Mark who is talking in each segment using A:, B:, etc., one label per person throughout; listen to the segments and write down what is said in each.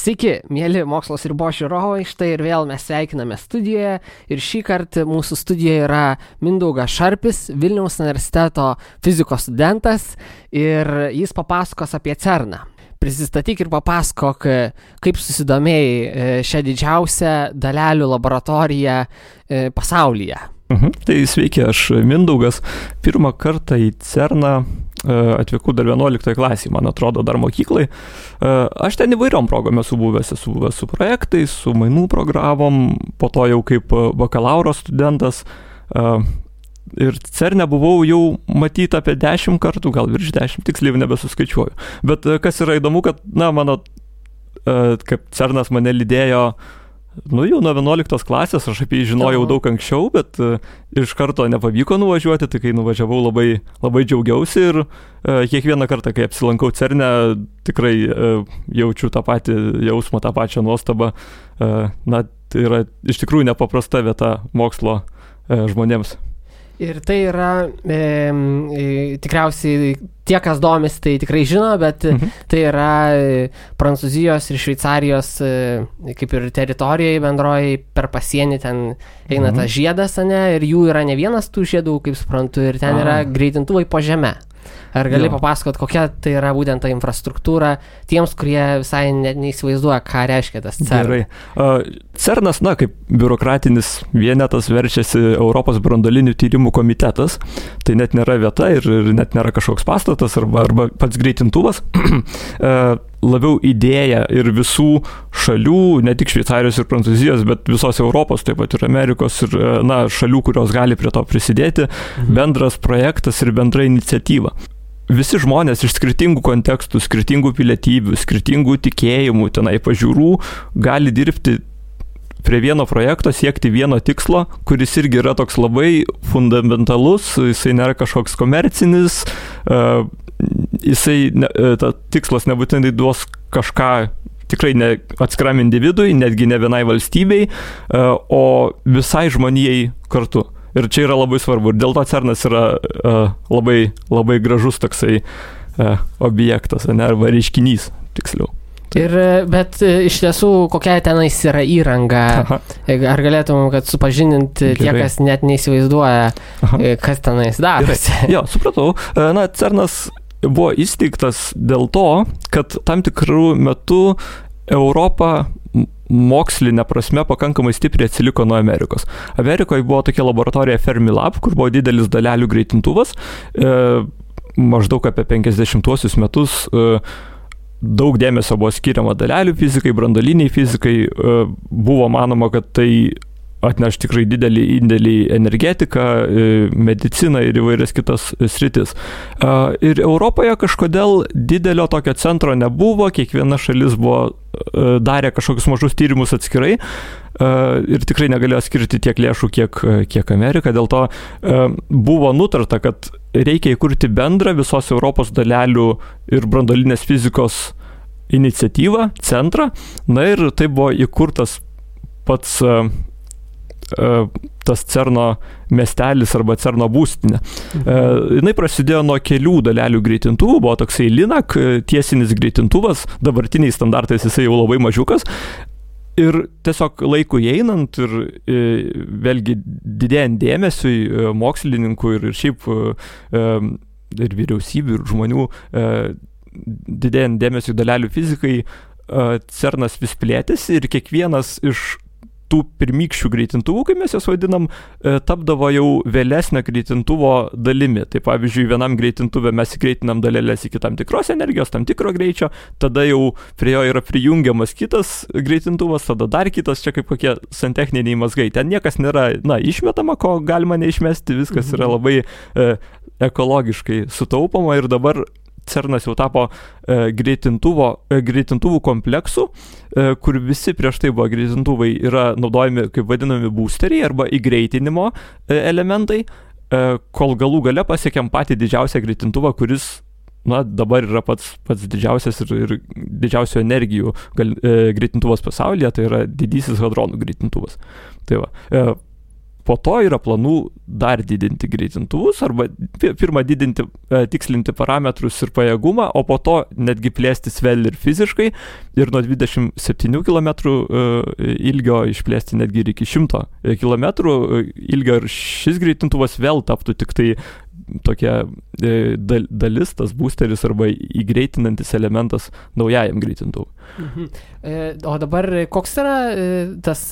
A: Sveiki, mėly Mokslas ribos žiūrovai, štai ir vėl mes sveikiname studijoje ir šį kartą mūsų studijoje yra Mindaugas Šarpis, Vilniaus universiteto fizikos studentas ir jis papasakos apie CERN-ą. Prisistatyk ir papasakok, kaip susidomėjai šią didžiausią dalelių laboratoriją pasaulyje.
B: Tai sveiki, aš Mindaugas. Pirmą kartą į CERN-ą atvykau dar 11 klasėje, man atrodo, dar mokyklai. Aš ten įvairiom progom esu buvęs su projektais, su mainų programom, po to jau kaip bakalauro studentas. Ir CERN-e buvau jau matyti apie 10 kartų, gal virš 10, tiksliai nebesuskaičiuoju. Bet kas yra įdomu, kad, kaip CERN-as mane lydėjo, jau nuo 11 klasės, aš apie jį žinojau daug anksčiau, bet iš karto nepavyko nuvažiuoti, tai kai nuvažiavau labai džiaugiausi ir kiekvieną kartą, kai apsilankau CERN-e, tikrai jaučiu tą patį jausmą, tą pačią nuostabą. Tai yra iš tikrųjų nepaprasta vieta mokslo žmonėms.
A: Ir tai yra, tikriausiai tie, kas domis, tai tikrai žino, bet tai yra Prancūzijos ir Šveicarijos kaip ir teritorijai bendroji per pasienį ten eina tas žiedas, ir jų yra ne vienas tų žiedų, kaip suprantu, ir ten yra greitintuvai po žeme. Ar gali papasakot, kokia tai yra būtent ta infrastruktūra tiems, kurie visai neįsivaizduoja, ką reiškia tas CERN?
B: Gerai. CERN-as, kaip biurokratinis vienetas verčiasi Europos branduolinių tyrimų komitetas. Tai net nėra vieta ir net nėra kažkoks pastatas arba pats greitintuvas. Labiau idėja ir visų šalių, ne tik Šveicarijos ir Prancūzijos, bet visos Europos, taip pat ir Amerikos ir šalių, kurios gali prie to prisidėti, bendras projektas ir bendra iniciatyva. Visi žmonės iš skirtingų kontekstų, skirtingų pilietybių, skirtingų tikėjimų, tenai pažiūrų, gali dirbti prie vieno projekto, siekti vieno tikslo, kuris irgi yra toks labai fundamentalus, jisai nėra kažkoks komercinis, ta tikslas nebūtinai duos kažką tikrai ne atskiram individui, netgi ne vienai valstybei, o visai žmonijai kartu. Ir čia yra labai svarbu. Ir dėl to CERN-as yra labai, labai gražus toksai objektas, arba reiškinys, tiksliau.
A: Bet iš tiesų, kokia tenais yra įranga? Ar galėtum, kad supažindinti tie, kas net neįsivaizduoja, kas tenais darosi?
B: Jo, supratau. CERN-as buvo įsteigtas dėl to, kad tam tikrų metų Europa mokslinė prasme pakankamai stipriai atsiliko nuo Amerikos. Amerikoje buvo tokia laboratorija Fermilab, kur buvo didelis dalelių greitintuvas. Maždaug apie 50-uosius metus daug dėmesio buvo skiriama dalelių fizikai, branduoliniai fizikai. Buvo manoma, kad tai atneš tikrai didelį indėlį į energetiką, mediciną ir įvairias kitas sritis. Ir Europoje kažkodėl didelio tokio centro nebuvo, kiekviena šalis darė kažkokius mažus tyrimus atskirai ir tikrai negalėjo skirti tiek lėšų, kiek Amerika. Dėl to buvo nutarta, kad reikia įkurti bendrą visos Europos dalelių ir branduolinės fizikos iniciatyvą, centrą. Ir tai buvo įkurtas pats tas CERN-o miestelis arba CERN-o būstinė. Jinai prasidėjo nuo kelių dalelių greitintuvų, buvo toksai LINAC tiesinis greitintuvas, dabartiniais standartais jisai jau labai mažiukas. Ir tiesiog laikui einant ir vėlgi didėjant dėmesiui mokslininkų ir šiaip ir vyriausybių ir žmonių didėjant dėmesiui dalelių fizikai, CERN-as vis plėtėsi ir kiekvienas iš tų pirmykščių greitintuvų, kaip mes jas vadinam, tapdavo jau vėlesnio greitintuvo dalimi. Tai pavyzdžiui, vienam greitintuvė mes įgreitinam dalelės iki tam tikros energijos, tam tikro greičio, tada jau prie jo yra prijungiamas kitas greitintuvas, tada dar kitas, čia kaip kokie santechniniai mazgai. Ten niekas nėra, išmetama, ko galima neišmesti, viskas yra labai ekologiškai sutaupoma ir dabar CERN-as jau tapo greitintuvų kompleksu, kur visi prieš tai buvo greitintuvai yra naudojami kaip vadinami boosteriai arba įgreitinimo elementai, kol galų gale pasiekėm patį didžiausią greitintuvą, kuris dabar yra pats didžiausias ir didžiausių energijų greitintuvas pasaulyje, tai yra didysis hadronų greitintuvas. Tai va. po to yra planų dar didinti greitintuvus arba pirmą didinti, tikslinti parametrus ir pajėgumą, o po to netgi plėstis vėl ir fiziškai ir nuo 27 km ilgio išplėsti netgi ir iki 100 km ilgio ir šis greitintuvas vėl taptų tik tai tokia dalis, tas boosteris arba įgreitinantis elementas naujajam greitintuvui.
A: O dabar koks yra tas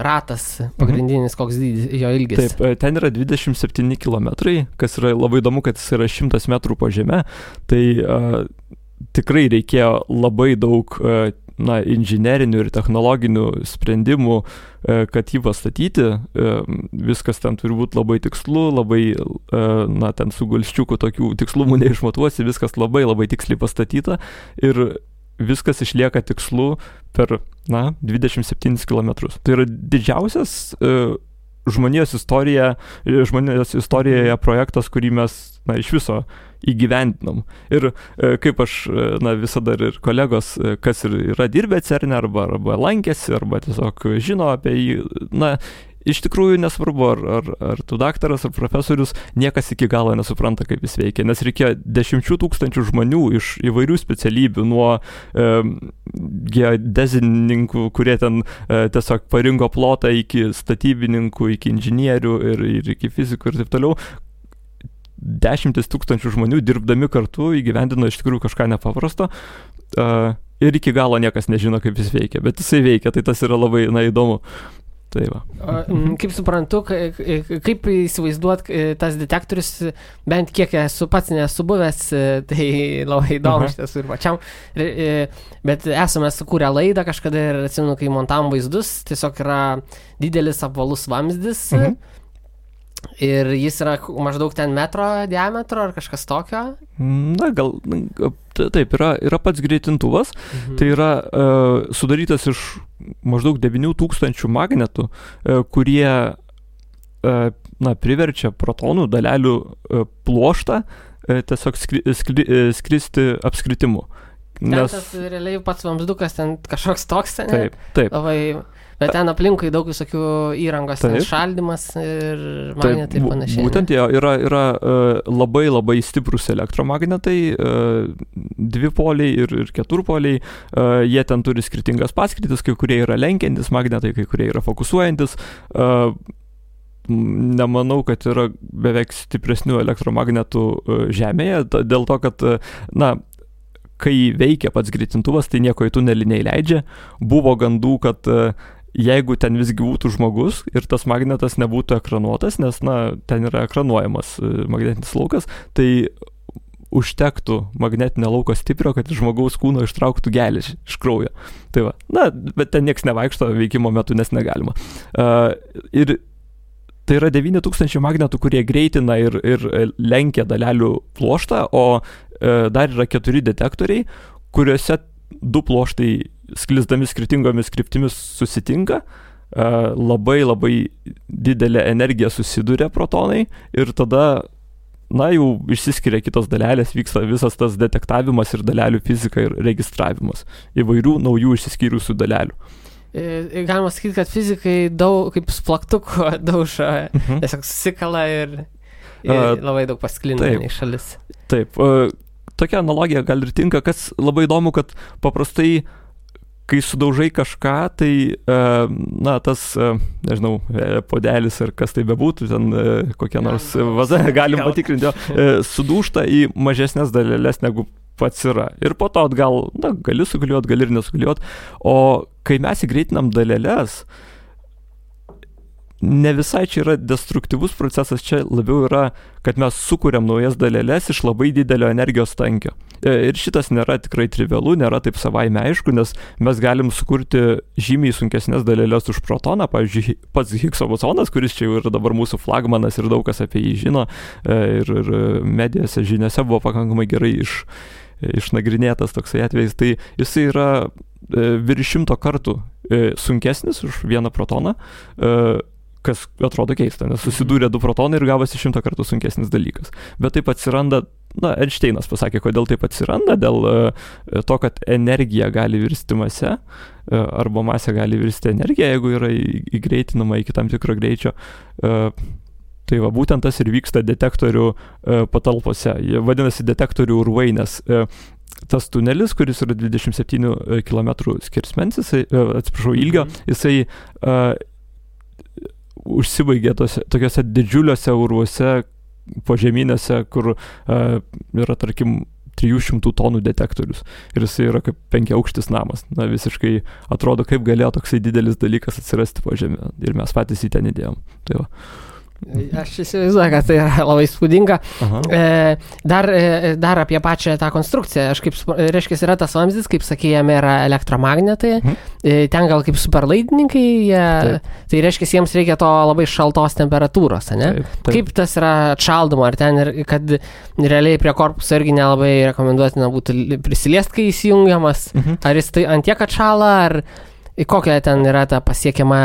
A: ratas pagrindinis, koks jo ilgis?
B: Taip, ten yra 27 km, kas yra labai įdomu, kad jis yra 100 metrų po žeme, tai tikrai reikėjo labai daug inžinerinių ir technologinių sprendimų, kad jį pastatyti. Viskas ten turi būti labai tikslu, labai, ten su gulščiuku tokių tikslumų neišmatuosi, viskas labai labai tiksliai pastatyta ir viskas išlieka tikslu per 27 km. Tai yra didžiausias žmonijos istorijoje projektas, kurį mes iš viso įgyvendinom. Ir kaip aš visada ir kolegos, kas ir yra dirbę CERN arba lankėsi, arba tiesiog žino apie jį, iš tikrųjų nesvarbu, ar tu daktaras, ar profesorius, niekas iki galo nesupranta, kaip jis veikia, nes reikėjo 10 000 žmonių iš įvairių specialybių, nuo geodezininkų, kurie ten tiesiog parinko plotą, iki statybininkų, iki inžinierių ir iki fizikų ir taip toliau. 10 000 žmonių dirbdami kartu įgyvendino iš tikrųjų kažką nepaprasto. Ir iki galo niekas nežino, kaip jis veikia, bet jisai veikia, tai tas yra labai įdomu. Tai va.
A: Kaip suprantu, kaip įsivaizduot tas detektorius, bent kiek esu pats nesu buvęs, tai labai įdomu šitas ir pačiam. Bet esame sukūrę laidą kažkada ir atsimenu, kai montavom vaizdus, tiesiog yra didelis apvalus vamzdis ir jis yra maždaug ten metro diametro ar kažkas tokio.
B: Gal taip, yra pats greitintuvas, tai yra sudarytas iš maždaug 9000 magnetų, kurie priverčia protonų dalelių pluoštą tiesiog skristi apskritimu.
A: Nes tas realiai pats vamzdukas ten kažkoks toks, ne?
B: Taip.
A: Labai, bet ten aplinkui daug visokių įrangos, ten šaldymas ir magnetai ir panašiai.
B: Būtent yra labai labai stiprus elektromagnetai, dvipoliai ir keturpoliai, jie ten turi skirtingas paskirtis, kai kurie yra lenkiantis magnetai, kai kurie yra fokusuojantis. Nemanau, kad yra beveik stipresnių elektromagnetų Žemėje, dėl to, kad, kai veikia pats greitintuvas, tai nieko į tunelį neįleidžia. Buvo gandų, kad jeigu ten visgi būtų žmogus ir tas magnetas nebūtų ekranuotas, nes, ten yra ekranuojamas magnetinis laukas, tai užtektų magnetinio lauko stiprio, kad iš žmogaus kūno ištrauktų geležį iš kraujo. Tai va, bet ten nieks nevaikšto veikimo metu, nes negalima. Ir tai yra 9000 magnetų, kurie greitina ir lenkia dalelių pluoštą, o dar yra 4 detektoriai, kuriuose 2 pluoštai sklisdami skirtingomis kryptimis susitinka, labai labai didelė energija susiduria protonai ir tada, jau išsiskiria kitos dalelės, vyksta visas tas detektavimas ir dalelių fizika ir registravimas įvairių naujų išsiskyrusių dalelių.
A: Galima sakyti, kad fizikai daug kaip splaktuko daužo, tiesiog susikala ir labai daug pasklinda į šalis.
B: Taip, tokia analogija gal ir tinka, kas labai įdomu, kad paprastai, kai sudaužai kažką, tai, tas, nežinau, podelis ar kas tai bebūtų, ten kokia nors vaza, galim patikrinti, sudūžta į mažesnės dalelės negu pats yra. Ir po to atgal, gali sugaliuot, gali ir nesugaliuot. O kai mes įgreitinam dalelės, ne visai čia yra destruktyvus procesas, čia labiau yra, kad mes sukuriam naujas dalelės iš labai didelio energijos tankio. Ir šitas nėra tikrai trivialu, nėra taip savaime aišku, nes mes galim sukurti žymiai sunkesnės dalelės už protoną, pavyzdžiui, pats Higgso bosonas, kuris čia jau yra dabar mūsų flagmanas ir daug kas apie jį žino, ir medijose, žiniose buvo pakankamai gerai išnagrinėtas toksai atvejis, tai jisai yra virš 100 kartų sunkesnis už vieną protoną, kas atrodo keista, nes susidūrė 2 protonai ir gavosi 100 kartų sunkesnis dalykas. Bet taip atsiranda, Einšteinas pasakė, kodėl taip atsiranda, dėl to, kad energija gali virsti mase, arba masė gali virsti energiją, jeigu yra įgreitinama iki tam tikro greičio. Tai va, būtent tas ir vyksta detektorių patalpose. Jie vadinasi detektorių urvai, nes tas tunelis, kuris yra 27 km skersmens, ilgio, jisai užsibaigė tokiuose didžiuliuose urvuose, požeminiuose, kur yra, tarkim, 300 tonų detektorius. Ir jisai yra kaip 5-aukštis namas. Visiškai atrodo, kaip galėjo toksai didelis dalykas atsirasti po žemę. Ir mes patys į ten įdėjom. Tai va.
A: Aš įsivaizduoju, kad tai yra labai spūdinga. Dar apie pačią tą konstrukciją. Aš reiškia, yra tas vamzdis, kaip sakė, jame yra elektromagnetai. Ten gal kaip superlaidininkai. Tai reiškia, jiems reikia to labai šaltos temperatūros, ne? Taip. Kaip tas yra atšaldoma? Ar ten, kad realiai prie korpuso irgi nelabai rekomenduotina būtų prisiliest, kai įsijungiamas? Ar jis tai antiek atšala, ar kokia ten yra ta pasiekiama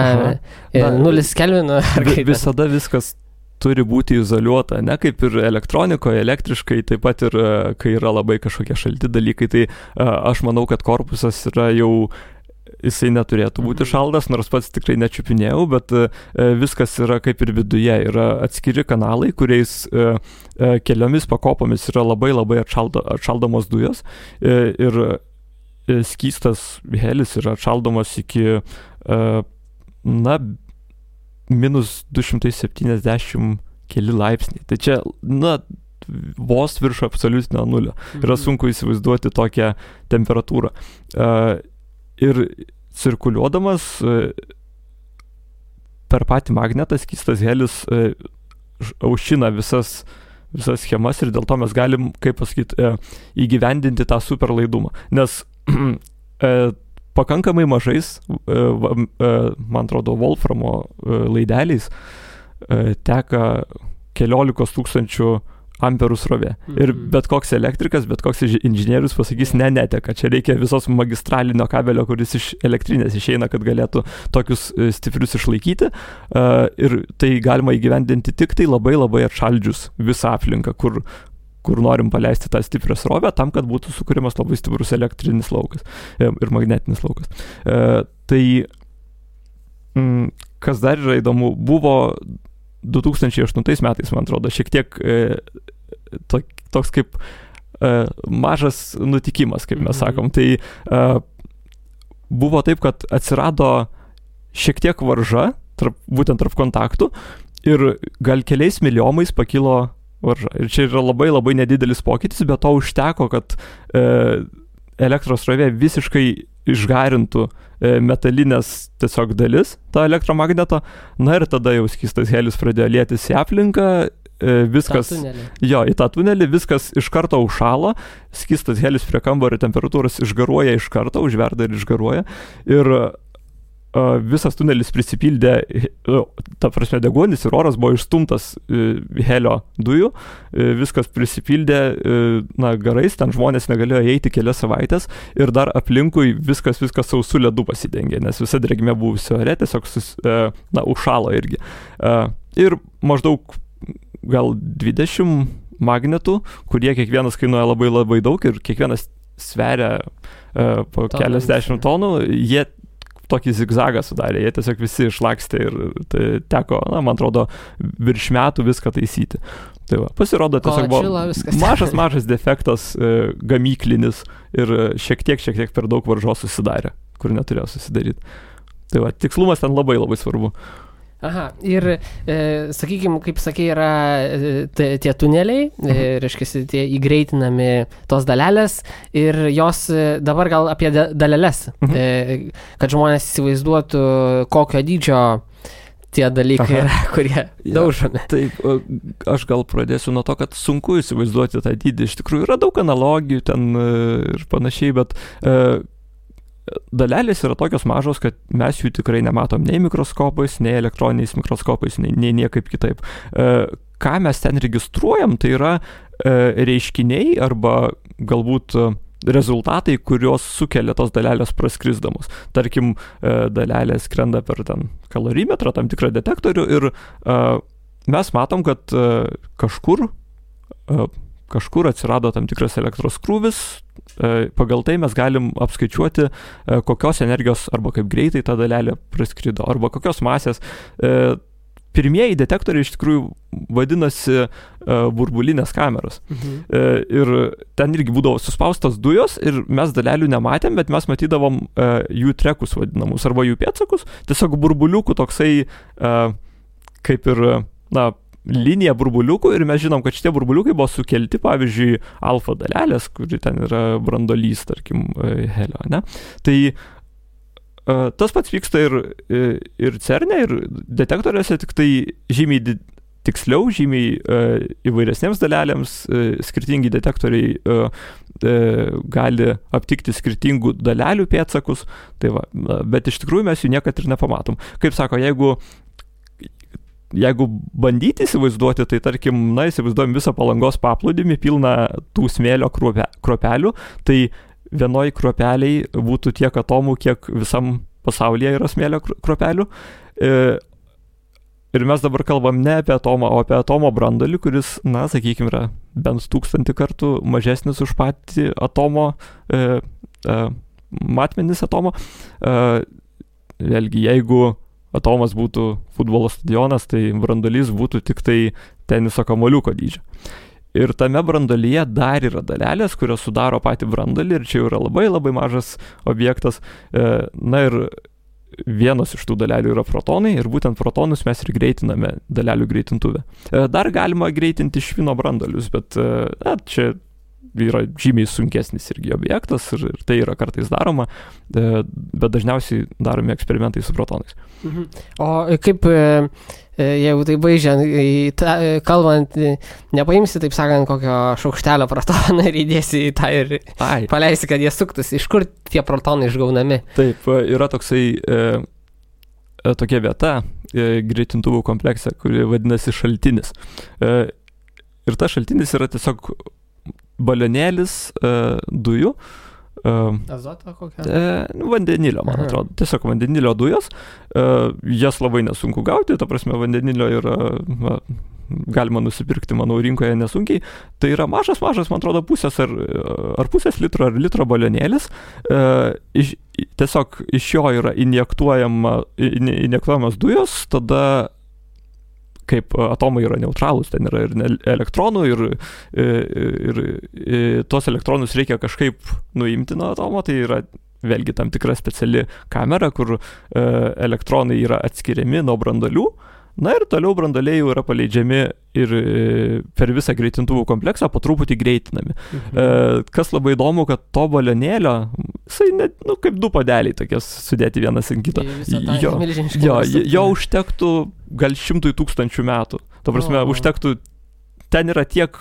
A: 0 kelvinų?
B: Visada viskas turi būti izoliuota, ne kaip ir elektronikoje, elektriškai, taip pat ir kai yra labai kažkokie šalti dalykai, tai aš manau, kad korpusas yra jau, jisai neturėtų būti šaldas, nors pats tikrai nečiupinėjau, bet viskas yra kaip ir viduje, yra atskiri kanalai, kuriais keliomis pakopomis yra labai labai atšaldomos dujos ir skystas helis yra atšaldomas iki minus 270 keli laipsniai. Tai čia, vos virš absoliutinio nulio. Yra sunku įsivaizduoti tokią temperatūrą. Ir cirkuliuodamas per patį magnetą skystas helis aušina visas schemas ir dėl to mes galim, kaip pasakyti, įgyvendinti tą superlaidumą. Nes pakankamai mažais, man atrodo, Wolframo laideliais teka keliolikos tūkstančių amperų srovė. Ir bet koks elektrikas, bet koks inžinierius pasakys, neteka. Čia reikia visos magistralinio kabelio, kuris iš elektrinės išeina, kad galėtų tokius stiprius išlaikyti. Ir tai galima įgyvendinti tik tai labai labai atšaldžius visą aplinką, kur norim paleisti tą stiprią srovę, tam, kad būtų sukūrimas labai stiprus elektrinis laukas ir magnetinis laukas. Tai, kas dar yra įdomu, buvo 2008 metais, man atrodo, šiek tiek toks kaip mažas nutikimas, kaip mes sakom. Tai buvo taip, kad atsirado šiek tiek varža, būtent tarp kontaktų, ir gal keliais miliomais pakilo varža. Ir čia yra labai labai nedidelis pokytis, bet to užteko, kad elektros srovė visiškai išgarintų metalinės tiesiog dalis to elektromagneto. Ir tada jau skystas helis pradėjo lietis į aplinką, viskas, į tą tunelį, viskas iš karto užšalo, skystas helis prie kambario temperatūros išgaruoja iš karto, užverda ir išgaruoja. Ir visas tunelis prisipildė, ta prasme, deguonis ir oras buvo išstumtas helio dujų, viskas prisipildė garais, ten žmonės negalėjo eiti kelias savaitės ir dar aplinkui viskas sausų ledų pasidengė, nes visa drėgmė buvusi ore tiesiog užšalo irgi. Ir maždaug gal 20 magnetų, kurie kiekvienas kainuoja labai labai daug ir kiekvienas sveria po keliasdešimt tonų, jie tokį zigzagą sudarė, jie tiesiog visi išlakstė ir tai teko, man atrodo, virš metų viską taisyti. Tai va, pasirodo, tiesiog buvo mažas defektas gamyklinis ir šiek tiek per daug varžos susidarė, kur neturėjo susidaryti. Tai va, tikslumas ten labai labai svarbu.
A: Aha, ir, sakykime, kaip sakė, yra tie tuneliai, reiškia, tie įgreitinami tos dalelės ir jos dabar gal apie dalelės, kad žmonės įsivaizduotų, kokio dydžio tie dalykai yra, kurie daužomi.
B: Taip, aš gal pradėsiu nuo to, kad sunku įsivaizduoti tą dydį. Iš tikrųjų yra daug analogijų ten ir panašiai, bet dalelės yra tokios mažos, kad mes jų tikrai nematom nei mikroskopais, nei elektroniniais mikroskopais, nei niekaip kitaip. Ką mes ten registruojam, tai yra reiškiniai arba galbūt rezultatai, kurios sukelia tos dalelės praskrisdamos. Tarkim, dalelės skrenda per ten kalorimetrą, tam tikrą detektorių ir mes matom, kad kažkur atsirado tam tikras elektros krūvis, pagal tai mes galim apskaičiuoti, kokios energijos arba kaip greitai ta dalelė praskrido, arba kokios masės. Pirmieji detektoriai iš tikrųjų vadinasi burbulinės kameros. Ir ten irgi būdavo suspaustos dujos ir mes dalelių nematėm, bet mes matydavom jų trekus vadinamus arba jų pėdsakus, tiesiog burbuliukų toksai kaip ir, linija burbuliukų ir mes žinom, kad šitie burbuliukai buvo sukelti, pavyzdžiui, alfa dalelės, kuri ten yra brandolys, tarkim, helio, ne? Tai tas pats vyksta ir CERN-e, ir detektoriuose, tik tai žymiai tiksliau, žymiai įvairesnėms dalelėms, skirtingi detektoriai gali aptikti skirtingų dalelių pėdsakus, tai va, bet iš tikrųjų mes jų niekad ir nepamatom. Kaip sako, jeigu bandyti įsivaizduoti, tai tarkim, įsivaizduojam visą Palangos paplūdimį pilną tų smėlio kruopelių, tai vienoj kruopeliai būtų tiek atomų, kiek visam pasaulyje yra smėlio kruopelių. Ir mes dabar kalbam ne apie atomą, o apie atomo branduolį, kuris, sakykime, yra bent 1000 kartų mažesnis už patį atomo, matmenis atomo. Vėlgi, jeigu atomas būtų futbolo stadionas, tai branduolys būtų tik tai teniso kamuoliuko dydžio. Ir tame branduolyje dar yra dalelės, kurios sudaro patį branduolį ir čia yra labai labai mažas objektas. Ir vienos iš tų dalelių yra protonai ir būtent protonus mes ir greitiname dalelių greitintuvę. Dar galima greitinti švino branduolius, bet čia yra žymiai sunkesnis irgi objektas ir tai yra kartais daroma, bet dažniausiai daromi eksperimentai su protonais.
A: O kaip, jeigu tai baigiant, kalbant, nepaimsi, taip sakant, kokio šaukštelio protoną ir įdėsi į tą ir paleisi, kad jie suktųsi. Iš kur tie protonai išgaunami?
B: Taip, yra toksai tokia vieta greitintuvų komplekse, kuri vadinasi šaltinis. Ir tas šaltinis yra tiesiog balionėlis dujų.
A: Azoto kokia?
B: Vandenilio, man atrodo. Tiesiog vandenilio dujos. Jas labai nesunku gauti, ta prasme vandenilio yra, galima nusipirkti, manau, rinkoje nesunkiai. Tai yra mažas, man atrodo, pusės ar pusės litro ar litro balionėlis. Tiesiog iš jo yra injektuojamas dujos, tada kaip atomai yra neutralūs, ten yra ir elektronų ir tuos elektronus reikia kažkaip nuimti nuo atomo, tai yra vėlgi tam tikra speciali kamera, kur elektronai yra atskiriami nuo branduolių, ir toliau branduoliai jau yra paleidžiami ir per visą greitintuvų kompleksą po truputį greitinami. Kas labai įdomu, kad to balionėlio, jisai net, kaip du padeliai tokie sudėti vienas ant kito. Jo užtektų gal 100 000 metų. Ta prasme, užtektų, ten yra tiek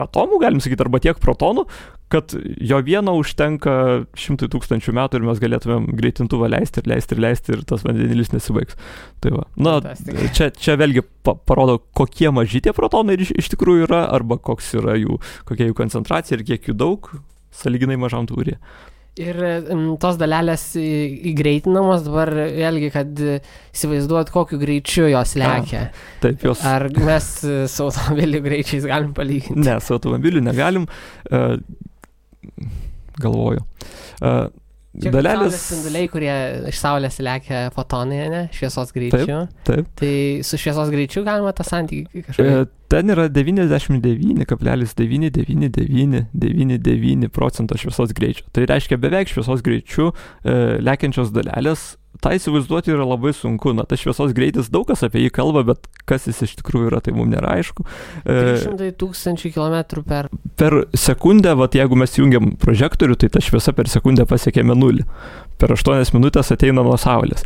B: atomų, galim sakyti, arba tiek protonų, kad jo vieno užtenka 100 000 metų ir mes galėtumėm greitintuvą leisti ir tas vandenilis nesibaigs. Tai va. Čia vėlgi parodo, kokie maži tie protonai iš tikrųjų yra, arba kokia jų koncentracija ir kiek jų daug, sąlyginai mažam tūryje.
A: Ir tos dalelės įgreitinamos dabar vėlgi, kad įsivaizduot, kokiu greičiu jos lekia.
B: Taip, jos.
A: Ar mes su automobilių greičiais galim palyginti?
B: Ne, su automobiliu negalim. Galvoju.
A: Dalelės spinduliai, kurie iš Saulės lekia fotonai, ne? Šviesos greičiu.
B: Taip.
A: Tai su šviesos greičiu galima tą santykį kažkaip?
B: Ten yra 99,99999% šviesos greičio. Tai reiškia beveik šviesos greičiu lekiančios dalelės. Tai įsivaizduoti yra labai sunku. Tas šviesos greitis, daug kas apie jį kalba, bet kas jis iš tikrųjų yra, tai mums nėra aišku.
A: 300 000 km
B: per sekundę, jeigu mes jungiam prožektorių, tai ta šviesa per sekundę pasiekėme 0. Per 8 minutės ateina nuo Saulės.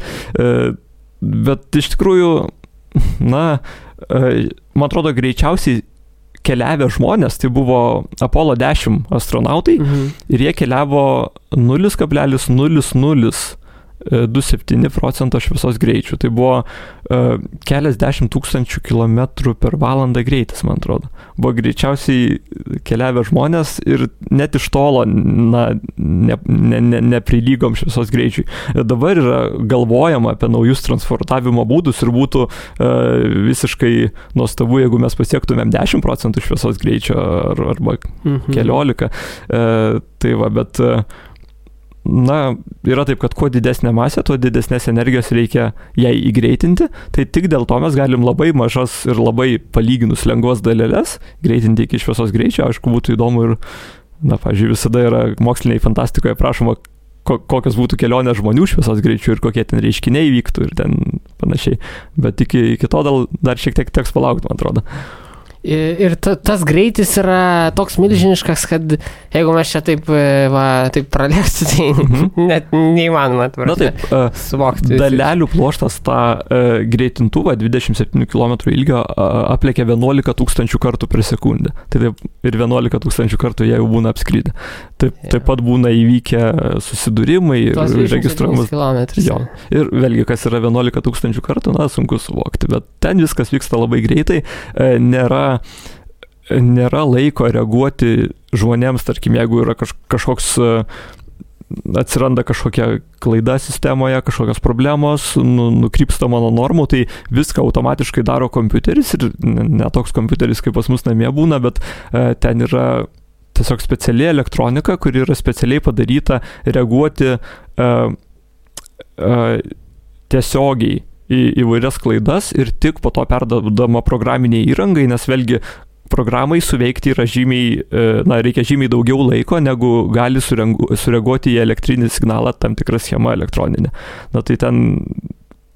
B: Bet iš tikrųjų, man atrodo, greičiausiai keliavę žmonės, tai buvo Apollo 10 astronautai ir jie keliavo 0,00 0,27% šviesos greičių. Tai buvo keliasdešimt tūkstančių kilometrų per valandą greitis, man atrodo. Buvo greičiausiai keliavę žmonės ir net iš tolo neprilygom šviesos greičiui. Dabar yra galvojama apie naujus transportavimo būdus ir būtų visiškai nuostabu, jeigu mes pasiektumėm 10% šviesos greičio arba 14%. Tai va, bet yra taip, kad kuo didesnė masė, tuo didesnės energijos reikia jai įgreitinti, tai tik dėl to mes galim labai mažas ir labai palyginus lengvas daleles greitinti iki šviesos greičio. Aišku, būtų įdomu ir, pavyzdžiui, visada yra moksliniai fantastikoje prašoma, kokios būtų kelionės žmonių šviesos greičių ir kokie ten reiškiniai vyktų ir ten panašiai. Bet iki to dar šiek tiek teks palaukti, man atrodo.
A: Ir tas greitis yra toks milžiniškas, kad jeigu mes čia taip pralėstų, tai net neįmanoma suvokti.
B: Dalelių pluoštas tą greitintuvą 27 km ilgio aplėkia 11 tūkstančių kartų per sekundę. Tai taip, ir 11 tūkstančių kartų jie jau būna apskridę. Taip pat būna įvykę susidūrimai ir registruojamas. Jo. Ir vėlgi, kas yra 11 tūkstančių kartų, sunku suvokti. Bet ten viskas vyksta labai greitai. Nėra laiko reaguoti žmonėms, tarkim, jeigu yra kažkoks, atsiranda kažkokia klaida sistemoje, kažkokios problemos, nukrypstama nuo normų, tai viską automatiškai daro kompiuteris ir ne toks kompiuteris, kaip pas mus namie būna, bet ten yra tiesiog speciali elektronika, kuri yra specialiai padaryta reaguoti tiesiogiai į įvairias klaidas ir tik po to perdodama programiniai įrangai, nes vėlgi programai suveikti yra reikia žymiai daugiau laiko, negu gali sureaguoti į elektrinį signalą tam tikrą schemą elektroninę. Tai ten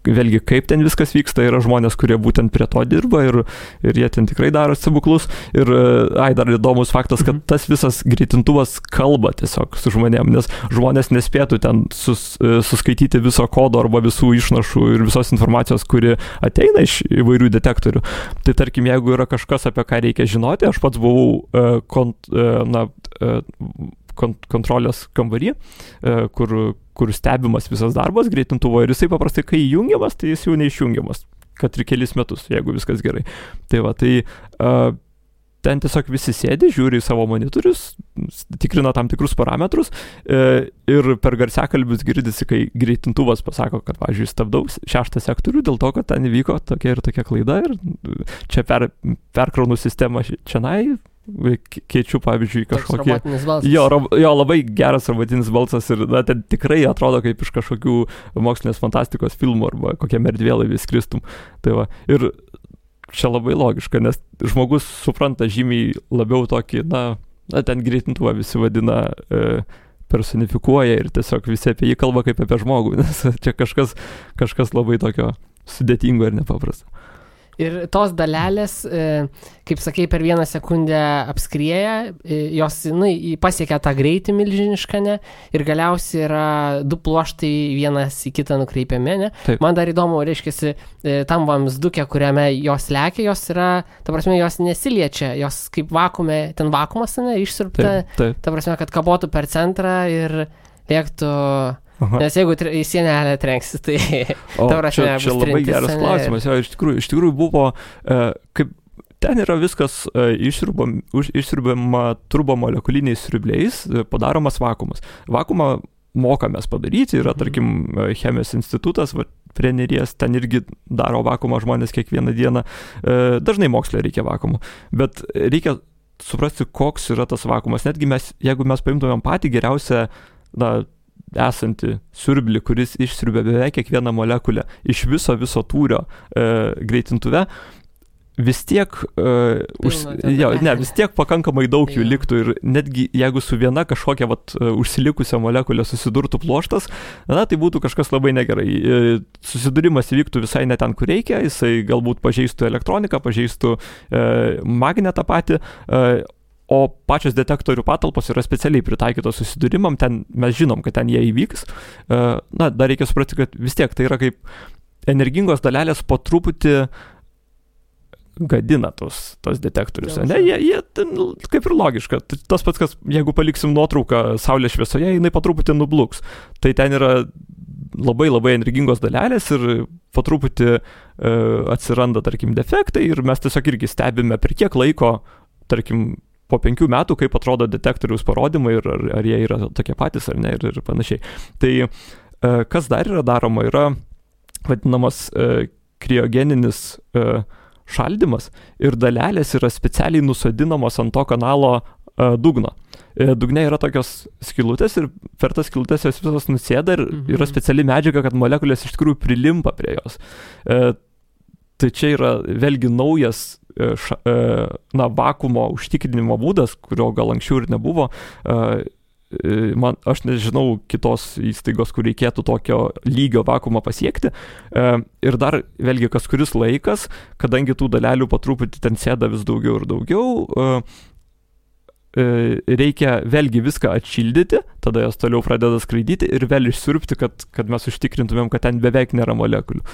B: vėlgi, kaip ten viskas vyksta, yra žmonės, kurie būtent prie to dirba ir jie ten tikrai daro stebuklus. Ir dar įdomus faktas, kad tas visas greitintuvas kalba tiesiog su žmonėm, nes žmonės nespėtų ten suskaityti viso kodo arba visų išnašų ir visos informacijos, kuri ateina iš įvairių detektorių. Tai tarkim, jeigu yra kažkas, apie ką reikia žinoti, aš pats buvau kontrolės kambarį, kur stebimas visas darbas greitintuvo ir jisai paprastai, kai įjungiamas, tai jis jau neišjungiamas, kad ir kelis metus, jeigu viskas gerai. Tai va, ten tiesiog visi sėdi, žiūri į savo monitorius, tikrina tam tikrus parametrus ir per garsiakalbius girdisi, kai greitintuvas pasako, kad, pavyzdžiui, stabdau 6 sektorių dėl to, kad ten įvyko tokia ir tokia klaida ir čia perkraunu sistemą čianai, keičiu, pavyzdžiui, kažkokį... Jo, labai geras robotinis balsas ir ten tikrai atrodo kaip iš kažkokių mokslinės fantastikos filmų arba kokiam erdvėlaivį skristum. Tai va, ir čia labai logiška, nes žmogus supranta žymiai labiau tokį, ten greitintuvą visi vadina, personifikuoja ir tiesiog visi apie jį kalba kaip apie žmogų, nes čia kažkas labai tokio sudėtingo ir nepaprasto.
A: Ir tos dalelės, kaip sakei, per 1 sekundę apskrieja, jos pasiekia tą greitį milžinišką, ne? Ir galiausiai yra 2 pluoštai vienas į kitą nukreipiami, ne?
B: Taip.
A: Man dar įdomu, reiškiasi, tam vamzduke, kuriame jos lekia, jos yra, ta prasme, jos nesiliečia, jos kaip vakuume, ten vakuumas, ne, išsiurbta, ta prasme, kad kabotų per centrą ir lėktų... Aha. Nes jeigu į sienelę trenksis, tai...
B: Čia labai geras klausimas. Jo, iš tikrųjų buvo, kaip ten yra viskas išsiurbiama turbomolekuliniais siurbliais, padaromas vakuumas. Vakuumą mokamės padaryti, yra, tarkim, chemijos institutas, prie Neries, ten irgi daro vakuumą žmonės kiekvieną dieną. Dažnai moksle reikia vakuumų, bet reikia suprasti, koks yra tas vakuumas. Netgi jeigu mes paimtumėm patį geriausią, esantį siurblį, kuris išsiurbia beveik kiekvieną molekulę iš viso tūrio greitintuve, vis tiek vis tiek pakankamai daug jų liktų ir netgi jeigu su viena kažkokia užsilikusią molekulę susidurtų pluoštas, tai būtų kažkas labai negerai. Susidūrimas įvyktų visai ne ten, kur reikia, jisai galbūt pažeistų elektroniką, pažeistų magnetą patį, o pačios detektorių patalpos yra specialiai pritaikytos susidūrimam, ten mes žinom, kad ten jie įvyks. Dar reikia suprasti, kad vis tiek tai yra kaip energingos dalelės po truputį gadina tos detektorius. Jie kaip ir logiška. Tas pats, kas jeigu paliksim nuotrauką saulės šviesoje, jinai po truputį nubluks. Tai ten yra labai labai energingos dalelės ir po truputį atsiranda, tarkim, defektai ir mes tiesiog irgi stebime per kiek laiko, tarkim, po 5 metų, kaip atrodo detektoriaus parodymai ir ar jie yra tokie patys ar ne ir panašiai. Tai kas dar yra daroma, yra vadinamas kriogeninis šaldymas ir dalelės yra specialiai nusodinamos ant to kanalo dugno. Dugne yra tokios skylutės ir per tas skylutės jos visos nusėda ir yra speciali medžiaga, kad molekulės iš tikrųjų prilimpa prie jos. Tai čia yra vėlgi naujas vakuumo užtikrinimo būdas, kurio gal anksčiau ir nebuvo. Aš nežinau kitos įstaigos, kur reikėtų tokio lygio vakuumą pasiekti. Ir dar vėlgi kas kuris laikas, kadangi tų dalelių po truputį ten sėda vis daugiau ir daugiau, reikia vėlgi viską atšildyti, tada jos toliau pradeda skraidyti ir vėl išsiurbti, kad mes užtikrintumėm, kad ten beveik nėra molekulių.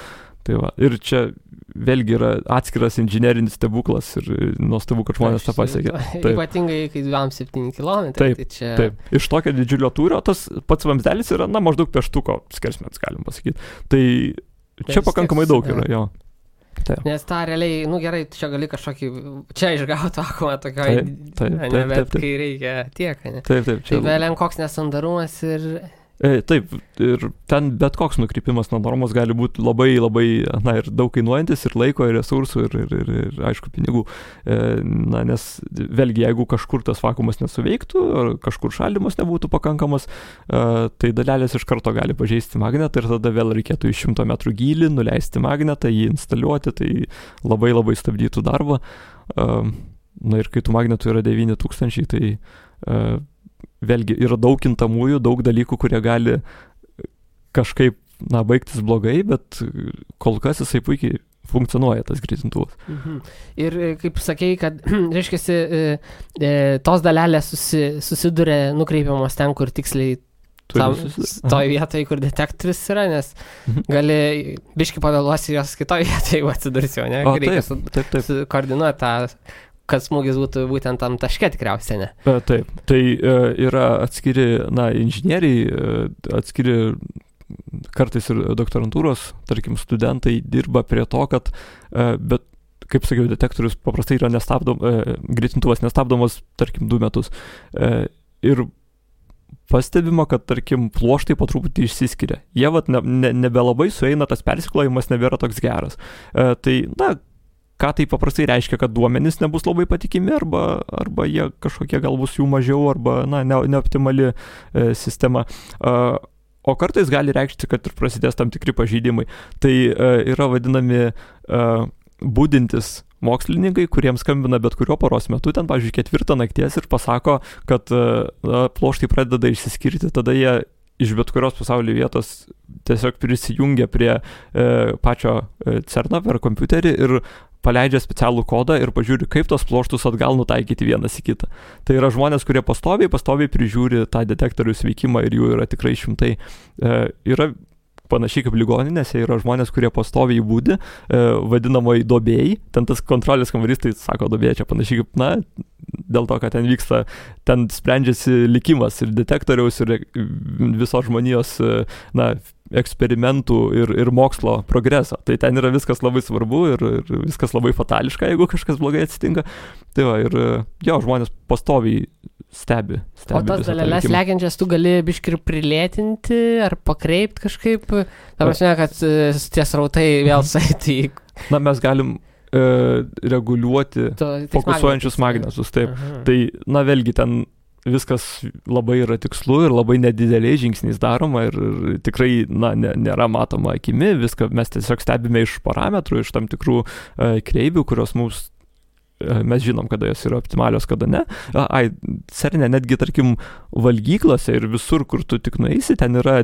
B: Tai va. Ir čia vėlgi yra atskiras inžinerinis stebuklas ir nuostabu, kad žmonės tą pasiekė.
A: Ypatingai, kai 2-7 km.
B: Taip,
A: tai čia...
B: taip. Iš tokio didžiulio tūrio tas pats vamzdelis yra, maždaug pieštuko skersmens, galim pasakyti. Tai čia pakankamai daug yra, jo. Taip.
A: Nes tą realiai, gerai, čia gali kažkokį, čia išgauti vakuumą tokio, bet kai reikia tiek, ne?
B: Taip.
A: Tai vėliau koks nesandarumas ir...
B: Taip, ir ten bet koks nukrypimas nuo normos gali būti labai, labai, ir daug kainuojantis, ir laiko, ir resursų, ir aišku, pinigų. Nes vėlgi, jeigu kažkur tas vakuumas nesuveiktų, ar kažkur šaldymas nebūtų pakankamas, tai dalelės iš karto gali pažeisti magnetą ir tada vėl reikėtų į 100 metrų gylį nuleisti magnetą, jį instaliuoti, tai labai, labai stabdytų darbą. Ir kai tų magnetų yra 9000, tai vėlgi yra daug kintamųjų, daug dalykų, kurie gali kažkaip, baigtis blogai, bet kol kas jisai puikiai funkcionuoja, tas greitintuvas.
A: Ir kaip sakei, kad, reiškiasi, tos dalelės susiduria nukreipiamos ten, kur tiksliai toj vietoje, kur detektorius yra, nes gali biškį pavėluosi jos kitoj vietoje, jeigu atsidursi, o ne? Reikia koordinuoti tą, kad smūgis būtų būtent tam taške tikriausiai, ne?
B: Taip, tai yra atskiri, inžinieriai, atskiri kartais ir doktorantūros, tarkim, studentai dirba prie to, kad, bet, kaip sakiau, detektorius paprastai yra greitintuvas nestabdomas, tarkim, 2 metus. Ir pastebima, kad, tarkim, pluoštai po truputį išsiskiria. Jie nebelabai sueina, tas persiklojimas nebėra toks geras. Tai, ką tai paprastai reiškia, kad duomenys nebus labai patikimi, arba jie kažkokie gal bus jų mažiau, arba neoptimali sistema. O kartais gali reikšti, kad ir prasidės tam tikri pažeidimai. Tai yra vadinami budintis mokslininkai, kuriems skambina bet kurio paros metu, ten, pavyzdžiui, 4 nakties ir pasako, kad pluoštai pradeda išsiskirti, tada jie iš bet kurios pasaulio vietos tiesiog prisijungia prie pačio CERN per kompiuterį ir paleidžia specialų kodą ir pažiūri, kaip tos pluoštus atgal nutaikyti vienas į kitą. Tai yra žmonės, kurie pastoviai prižiūri tą detektorių veikimą ir jų yra tikrai šimtai. Yra panašiai kaip ligoninėse, yra žmonės, kurie pastoviai būdi, vadinamoji duobėjai, ten tas kontrolės kambarys, tai sako duobėjai, čia panašiai kaip, dėl to, kad ten vyksta, ten sprendžiasi likimas ir detektoriaus, ir visos žmonijos, eksperimentų ir mokslo progreso. Tai ten yra viskas labai svarbu ir viskas labai fatališka, jeigu kažkas blogai atsitinka. Tai va, ir žmonės pastoviai stebi.
A: O tas dalelės lekiančias tu gali biškį prilėtinti ar pakreipt kažkaip? Ta prasme, kad tie srautai vėl saitų į...
B: Mes galim reguliuoti fokusuojančius magnetus. Taip. Tai, vėlgi ten viskas labai yra tikslu ir labai nedideliais žingsniais daroma ir tikrai, nėra matoma akimi, viską mes tiesiog stebime iš parametrų, iš tam tikrų kreivių, kurios mes žinom, kada jos yra optimalios, kada ne. CERN-e netgi, tarkim, valgyklose ir visur, kur tu tik nueisi, ten yra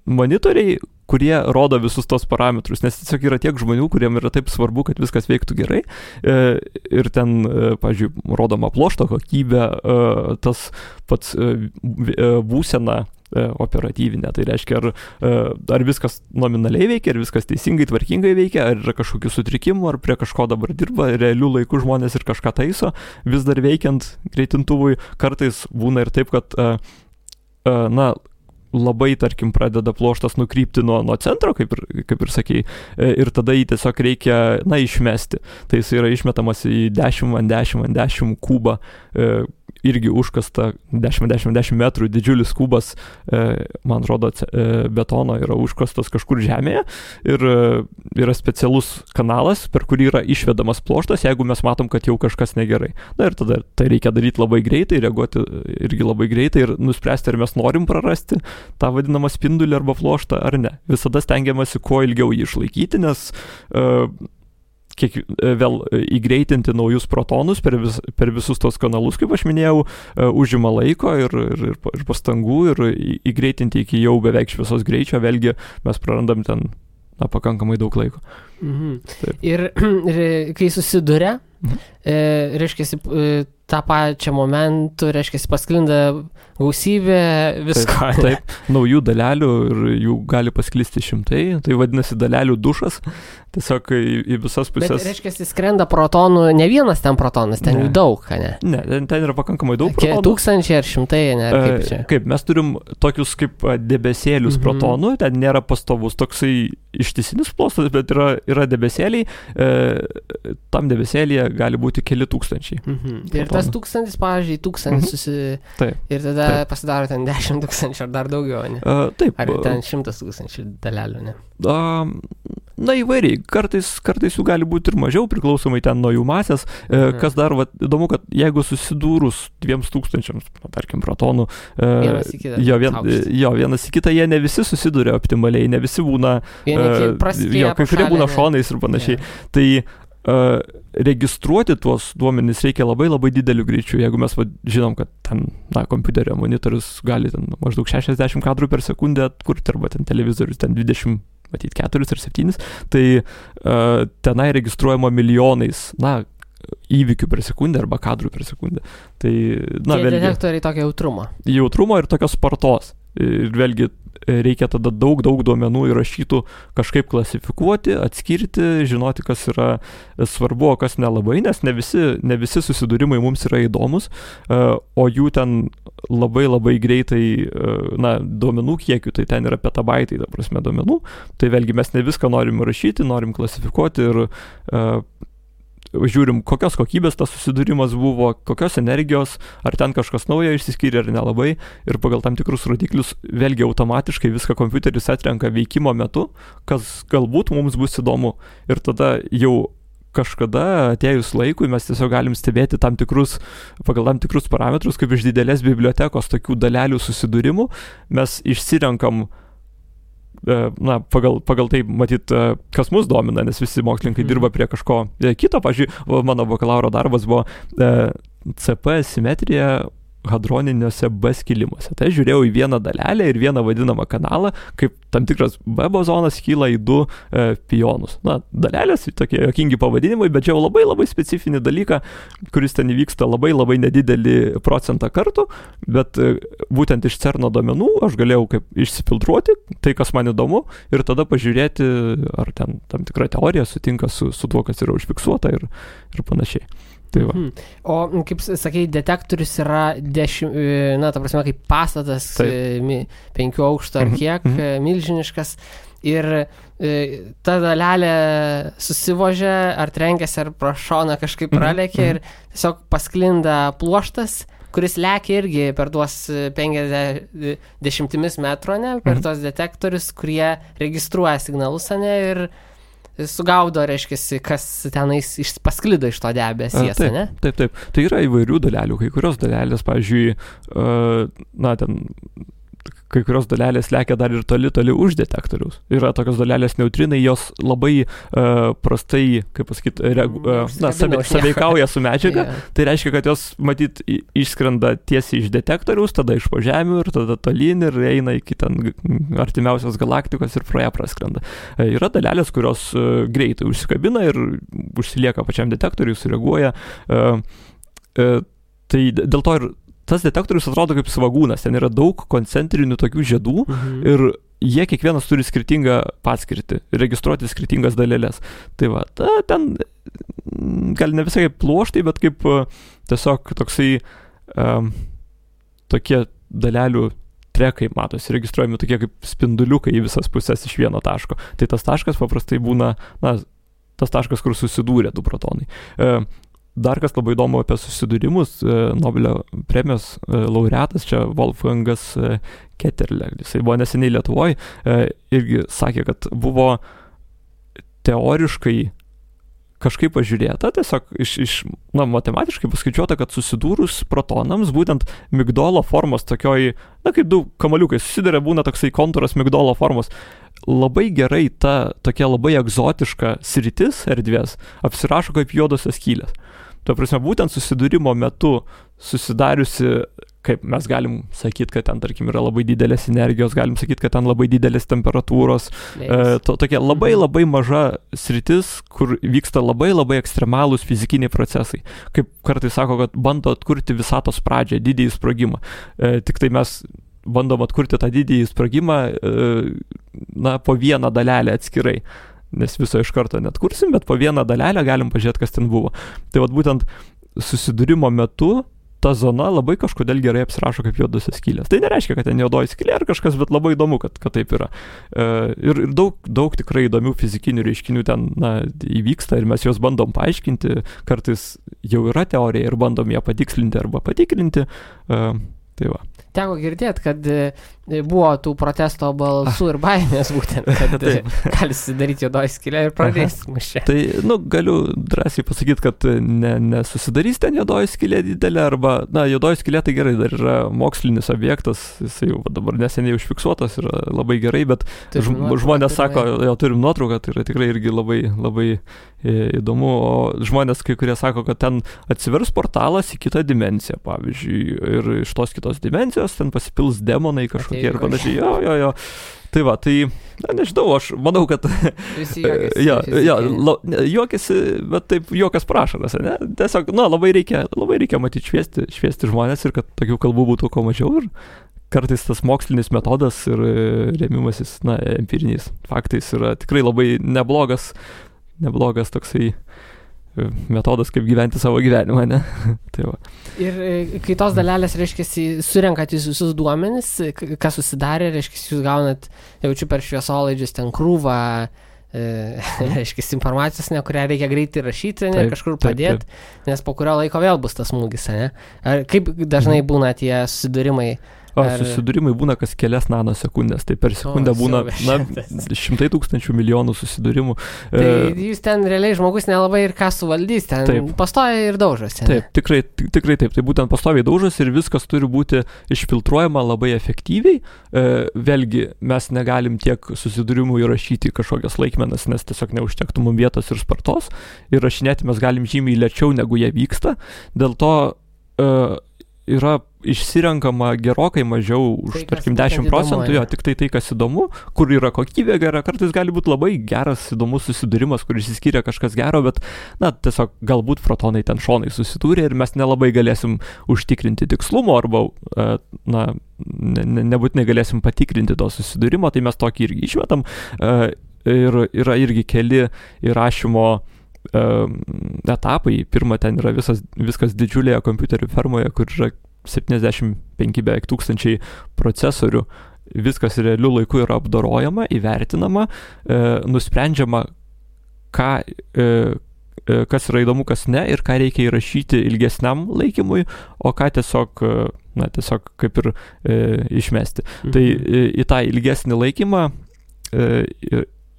B: monitoriai, kurie rodo visus tos parametrus, nes tiesiog yra tiek žmonių, kuriem yra taip svarbu, kad viskas veiktų gerai. Ir ten, pavyzdžiui, rodoma pluošto kokybė, tas pats būsena operatyvinė. Tai reiškia, ar viskas nominaliai veikia, ar viskas teisingai, tvarkingai veikia, ar yra kažkokių sutrikimų, ar prie kažko dabar dirba, realių laikų žmonės ir kažką taiso, vis dar veikiant greitintuvui. Kartais būna ir taip, kad labai, tarkim, pradeda pluoštas nukrypti nuo centro, kaip ir sakei, ir tada jį tiesiog reikia, išmesti. Tai jis yra išmetamas į 10x10x10 kubą, irgi užkasta 10x10 metrų didžiulis kubas, man rodo, betono yra užkastas kažkur žemėje ir yra specialus kanalas, per kurį yra išvedamas pluoštas, jeigu mes matom, kad jau kažkas negerai. Na ir tada tai reikia daryti labai greitai, reaguoti irgi labai greitai ir nuspręsti, ar mes norim prarasti tą vadinamą spindulį arba pluoštą ar ne. Visada stengiamasi kuo ilgiau jį išlaikyti, nes vėl įgreitinti naujus protonus per visus tos kanalus, kaip aš minėjau, užima laiko ir pastangų ir įgreitinti iki jau beveik šviesos greičio, vėlgi mes prarandam ten pakankamai daug laiko.
A: Ir kai susiduria, reiškia, tą pačią momentų, reiškia, pasklinda gausybė visko.
B: Taip, naujų dalelių ir jų gali pasklisti šimtai, tai vadinasi dalelių dušas, tiesiog į visas pusės.
A: Bet, reiškia, skrenda protonų, ne vienas ten protonas, ten jų daug, ne?
B: Ne, ten yra pakankamai daug protonų.
A: Tūkstančiai ar šimtai, ne? Kaip čia?
B: Kaip, mes turim tokius kaip debesėlius protonų, ten nėra pastovus toksai ištisinis plostas, bet yra debesėliai, tam debesėlyje gali būti keli tūkstančiai.
A: Ir tas 1000, pavyzdžiui, 1000 ir tada pasidaro ten 10 000 ar dar daugiau, ne?
B: Taip.
A: Ar ten 100 000 dalelių, ne?
B: Na įvairiai, kartais jų gali būti ir mažiau, priklausomai ten nuo jų masės. Kas dar įdomu, kad jeigu susidūrus 2000, tarkim, protonų, vienas į kitą, jie ne visi susiduria optimaliai, ne visi būna, kai kurie būna šonais ir panašiai. Tai registruoti tuos duomenis reikia labai labai dideliu greičiu. Jeigu mes žinom, kad ten, kompiuterio monitorius gali ten maždaug 60 kadrų per sekundę atkurti, arba ten televizorius ten 20, matyt 4 ar 7, tai tenai registruojama milijonais, įvykių per sekundę arba kadrų per sekundę. Tai,
A: vėlgi, detektoriai tokio
B: jautrumo ir tokios spartos. Ir vėlgi reikia tada daug duomenų įrašytų kažkaip klasifikuoti, atskirti, žinoti, kas yra svarbu, o kas nelabai, nes ne visi susidūrimai mums yra įdomus, o jų ten labai labai greitai, duomenų kiekių, tai ten yra petabaitai, ta prasme, duomenų, tai vėlgi mes ne viską norim įrašyti, norim klasifikuoti ir žiūrim, kokios kokybės tas susidūrimas buvo, kokios energijos, ar ten kažkas naujo išsiskyrė ar nelabai, ir pagal tam tikrus rodiklius vėlgi automatiškai viską kompiuteris atrenka veikimo metu, kas galbūt mums bus įdomu, ir tada jau kažkada atėjus laikui mes tiesiog galim stebėti pagal tam tikrus parametrus, kaip iš didelės bibliotekos tokių dalelių susidūrimų mes išsirenkam pagal tai, matyt, kas mus domina, nes visi mokslininkai dirba prie kažko kito. Pavyzdžiui, mano bakalauro darbas buvo CP simetrija hadroniniuose B skilimuose. Tai žiūrėjau į vieną dalelę ir vieną vadinamą kanalą, kaip tam tikras B bozonas kyla į 2 pionus. Dalelės, tokie jokingi pavadinimai, bet čia labai labai specifinį dalyką, kuris ten įvyksta labai labai nedidelį procentą kartų, bet būtent iš CERNo duomenų aš galėjau kaip išsifiltruoti tai, kas man įdomu, ir tada pažiūrėti, ar ten tam tikra teorija sutinka su tuo, kas yra užfiksuota ir panašiai. Tai va.
A: O, kaip sakai, detektorius yra ta prasme, kaip pastatas 5 aukštų ar kiek, milžiniškas, ir ta dalelė susivožia, ar trenkėsi, ar pro šoną kažkaip pralėkė, ir tiesiog pasklinda pluoštas, kuris lekia irgi per tuos 50 metrų, per tuos detektorius, kurie registruoja signalus, ir sugaudo, reiškia, kas tenais pasklido iš to debesies, ne?
B: Taip. Tai yra įvairių dalelių. Kai kurios dalelės, pavyzdžiui, kai kurios dalelės lekia dar ir toli už detektoriaus. Yra tokios dalelės neutrinai, jos labai prastai, kaip pasakyti, sąveikauja su medžiaga. Tai reiškia, kad jos, matyt, išskrenda tiesiai iš detektoriaus, tada iš po žemių ir tada tolyn ir eina iki ten artimiausios galaktikos ir pro ją praskrenda. Yra dalelės, kurios greitai užsikabina ir užsilieka pačiam detektoriui, sureaguoja. Tai dėl to ir tas detektorius atrodo kaip svagūnas, ten yra daug koncentrinių tokių žiedų ir jie kiekvienas turi skirtingą paskirtį, registruoti skirtingas dalelės. Tai va, ten gal ne visai kaip pluoštai, bet kaip tiesiog toksai tokie dalelių trekai matosi, registruojami tokie kaip spinduliukai į visas pusės iš vieno taško. Tai tas taškas paprastai būna, tas taškas, kur susidūrė du protonai. Dar kas labai įdomu apie susidūrimus, Nobelio premijos laureatas, čia Wolfgangas Ketterle, jisai buvo neseniai Lietuvoje, irgi sakė, kad buvo teoriškai kažkaip pažiūrėta, tiesiog matematiškai paskaičiuota, kad susidūrus protonams, būtent migdolo formos tokioj, kaip du kamaliukai susiduria, būna toksai kontūras migdolo formos, labai gerai ta tokia labai egzotiška sritis erdvės apsirašo kaip juodosios skylės. Tuo prasme, būtent susidūrimo metu susidariusi, kaip mes galim sakyti, kad ten, tarkim, yra labai didelės energijos, galim sakyti, kad ten labai didelės temperatūros, tokia labai labai maža sritis, kur vyksta labai labai ekstremalūs fizikiniai procesai. Kaip kartais sako, kad bando atkurti visatos pradžią, didįjį sprogimą. Tik tai mes bandom atkurti tą didįjį sprogimą, po vieną dalelę atskirai. Nes viso iš karto net kursim, bet po vieną dalelę galim pažiūrėti, kas ten buvo. Tai būtent susidūrimo metu ta zona labai kažkodėl gerai apsirašo kaip juodosios skylės. Tai nereiškia, kad ten juodoji skylė ar kažkas, bet labai įdomu, kad taip yra. Ir daug tikrai įdomių fizikinių reiškinių ten įvyksta ir mes juos bandom paaiškinti, kartais jau yra teorija ir bandom ją patikslinti arba patikrinti. Tai va.
A: Teko girdėti, kad buvo tų protesto balsų ir baimės būtent, kad gali susidaryti juodoji skylė ir pradės mušė.
B: Tai, galiu drąsiai pasakyti, kad nesusidarys ten juodoji skylė didelė, arba, juodoji skylė tai gerai, dar yra mokslinis objektas, jis jau dabar neseniai užfiksuotas, yra labai gerai, bet žmonės sako, jau turim nuotrauką, tai yra tikrai irgi labai, labai įdomu, o žmonės kai kurie sako, kad ten atsivers portalas į kitą dimensiją, pavyzdžiui, ir iš tos kitos dimensijos ten pasipils demonai kažkokie ir panašiai. Jo. Tai va, nežinau, aš manau, kad
A: visi juokiasi.
B: Juokiasi, bet taip juokas prašaras, ne? Tiesiog, labai reikia matyti šviesti žmonės ir kad tokių kalbų būtų kuo mažiau ir kartais tas mokslinis metodas ir rėmimasis, empiriniais faktais yra tikrai labai neblogas toksai metodas, kaip gyventi savo gyvenimą, ne? Tai va.
A: Ir kai tos dalelės, reiškia, surenkat visus duomenis, kas susidarė, reiškia, jūs gaunat, jaučiu per šviesolaidžius ten krūvą, reiškia, informacijos, kurią reikia greitai rašyti, kažkur padėti, nes po kurio laiko vėl bus tas smūgis, ne? Ar kaip dažnai būna tie susidūrimai?
B: Susidūrimai būna kas kelias nanosekundės, tai per sekundę būna 100 tūkstančių milijonų susidūrimų.
A: Tai jūs ten realiai žmogus nelabai ir ką suvaldys, ten pastoja ir daužosi.
B: Taip, tikrai taip, tai būtent pastoviai daužosi ir viskas turi būti išfiltruojama labai efektyviai. Vėlgi, mes negalim tiek susidūrimų įrašyti kažkokias laikmenas, nes tiesiog neužtektų mums vietos ir spartos. Įrašinėti mes galim žymiai lėčiau, negu jie vyksta. Dėl to yra išsirenkama gerokai mažiau už, tarkim, 10%, tik tai, kas įdomu, kur yra kokybė gera, kartais gali būti labai geras, įdomus susidūrimas, kur išsiskyrė kažkas gero, bet, tiesiog galbūt protonai ten šonai susidūrė ir mes nelabai galėsim užtikrinti tikslumo arba, nebūtinai galėsim patikrinti to susidūrimo, tai mes tokį irgi išmetam ir yra irgi keli įrašymo etapai. Pirma, ten yra viskas didžiulėje kompiuterių fermoje, kur yra 75 beveik tūkstančiai procesorių. Viskas realiu laiku yra apdorojama, įvertinama, nusprendžiama, kas yra įdomu, kas ne, ir ką reikia įrašyti ilgesniam laikymui, o ką tiesiog kaip ir išmesti. Tai į tą ilgesnį laikymą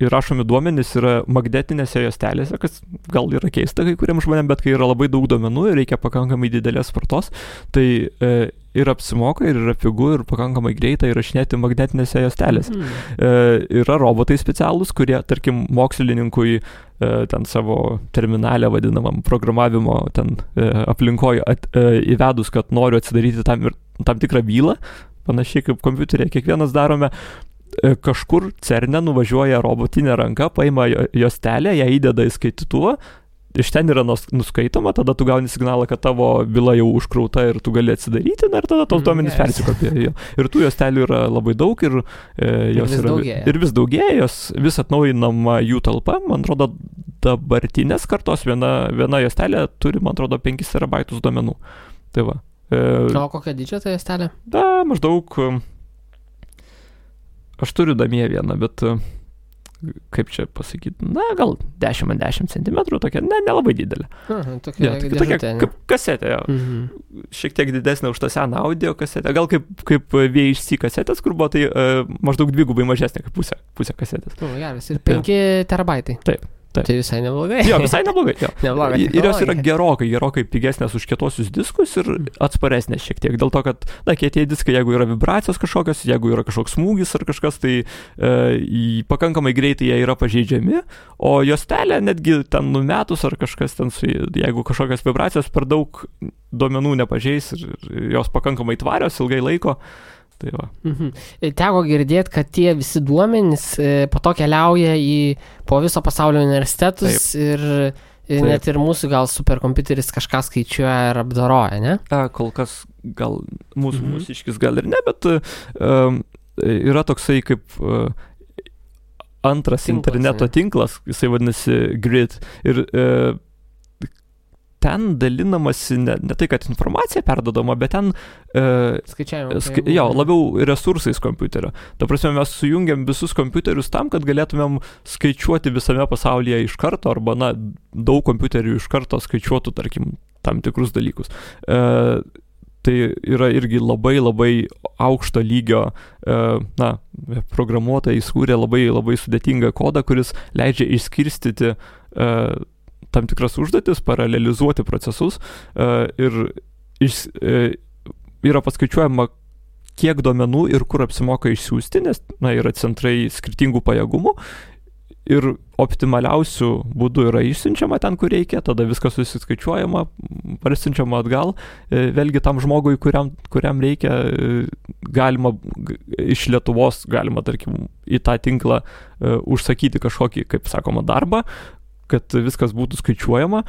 B: įrašomi duomenys yra magnetinėse juostelėse, kas gal yra keista kai kuriems žmonėms, bet kai yra labai daug duomenų ir reikia pakankamai didelės spartos, tai ir apsimoka, ir yra pigu, ir pakankamai greita įrašinėti magnetinėse juostelėse. Yra robotai specialūs, kurie, tarkim, mokslininkui ten savo terminalę vadinamam programavimo ten aplinkoje įvedus, kad noriu atsidaryti tam tikrą bylą, panašiai kaip kompiuterėje kiekvienas darome, kažkur CERNE nuvažiuoja robotinė ranka, paima juostelę, ją įdeda į skaitytuvą, iš ten yra nuskaitoma, tada tu gauni signalą, kad tavo byla jau užkrauta ir tu gali atsidaryti, ir tada tos duomenys persikopija. Ir tų juostelių yra labai daug ir vis daugėja, jos vis atnaujinama jų talpa, man atrodo, dabartinės kartos viena juostelė turi, man atrodo, 5 terabaitus duomenų. Tai va.
A: O kokia didžio ta juostelė?
B: Maždaug aš turiu namie vieną, bet kaip čia pasakyti, gal 10x10 cm, tokia, nelabai didelė.
A: Tokia
B: kaip kasetė, šiek tiek didesnė už tą seną audio kasetę, gal kaip VHC kasetės, kur buvo, tai maždaug dvigubai mažesnė kaip pusė kasetės.
A: Geras, ir 5 terabaitai.
B: Taip.
A: Tai visai neblogai.
B: Jo, visai neblogai.
A: Neblogai.
B: Ir jos yra gerokai pigesnės už kietosius diskus ir atsparesnės šiek tiek. Dėl to, kad, kietieji diskai, jeigu yra vibracijos kažkokios, jeigu yra kažkoks smūgis ar kažkas, tai pakankamai greitai jie yra pažeidžiami, o juostelė netgi ten numetus ar kažkas ten, jeigu kažkokios vibracijos per daug duomenų nepažeis ir jos pakankamai tvarios ilgai laiko. Tai va.
A: Teko girdėti, kad tie visi duomenys po to keliauja po viso pasaulio universitetus. Taip. Ir net ir mūsų gal superkompiuteris kažką skaičiuoja ir apdoroja, ne?
B: Kol kas gal mūsiškis gal ir ne, bet yra toksai kaip antras interneto tinklas, jisai vadinasi Grid. Ir ten dalinamasi ne tai, kad informacija perdodama, bet ten labiau resursais kompiuterio. Ta prasme, mes sujungiam visus kompiuterius tam, kad galėtumėm skaičiuoti visame pasaulyje iš karto, arba daug kompiuterių iš karto skaičiuotų, tarkim, tam tikrus dalykus. Tai yra irgi labai aukšto lygio, programuotojai skūrė labai sudėtingą kodą, kuris leidžia išskirstyti tam tikras užduotis, paralelizuoti procesus ir yra paskaičiuojama, kiek duomenų ir kur apsimoka išsiųsti, nes yra centrai skirtingų pajėgumų ir optimaliausių būdų yra išsiunčiama ten, kur reikia, tada viskas susiskaičiuojama, parsiunčiama atgal, vėlgi tam žmogui, kuriam reikia, galima iš Lietuvos, galima, tarkim, į tą tinklą užsakyti kažkokį, kaip sakoma, darbą, kad viskas būtų skaičiuojama,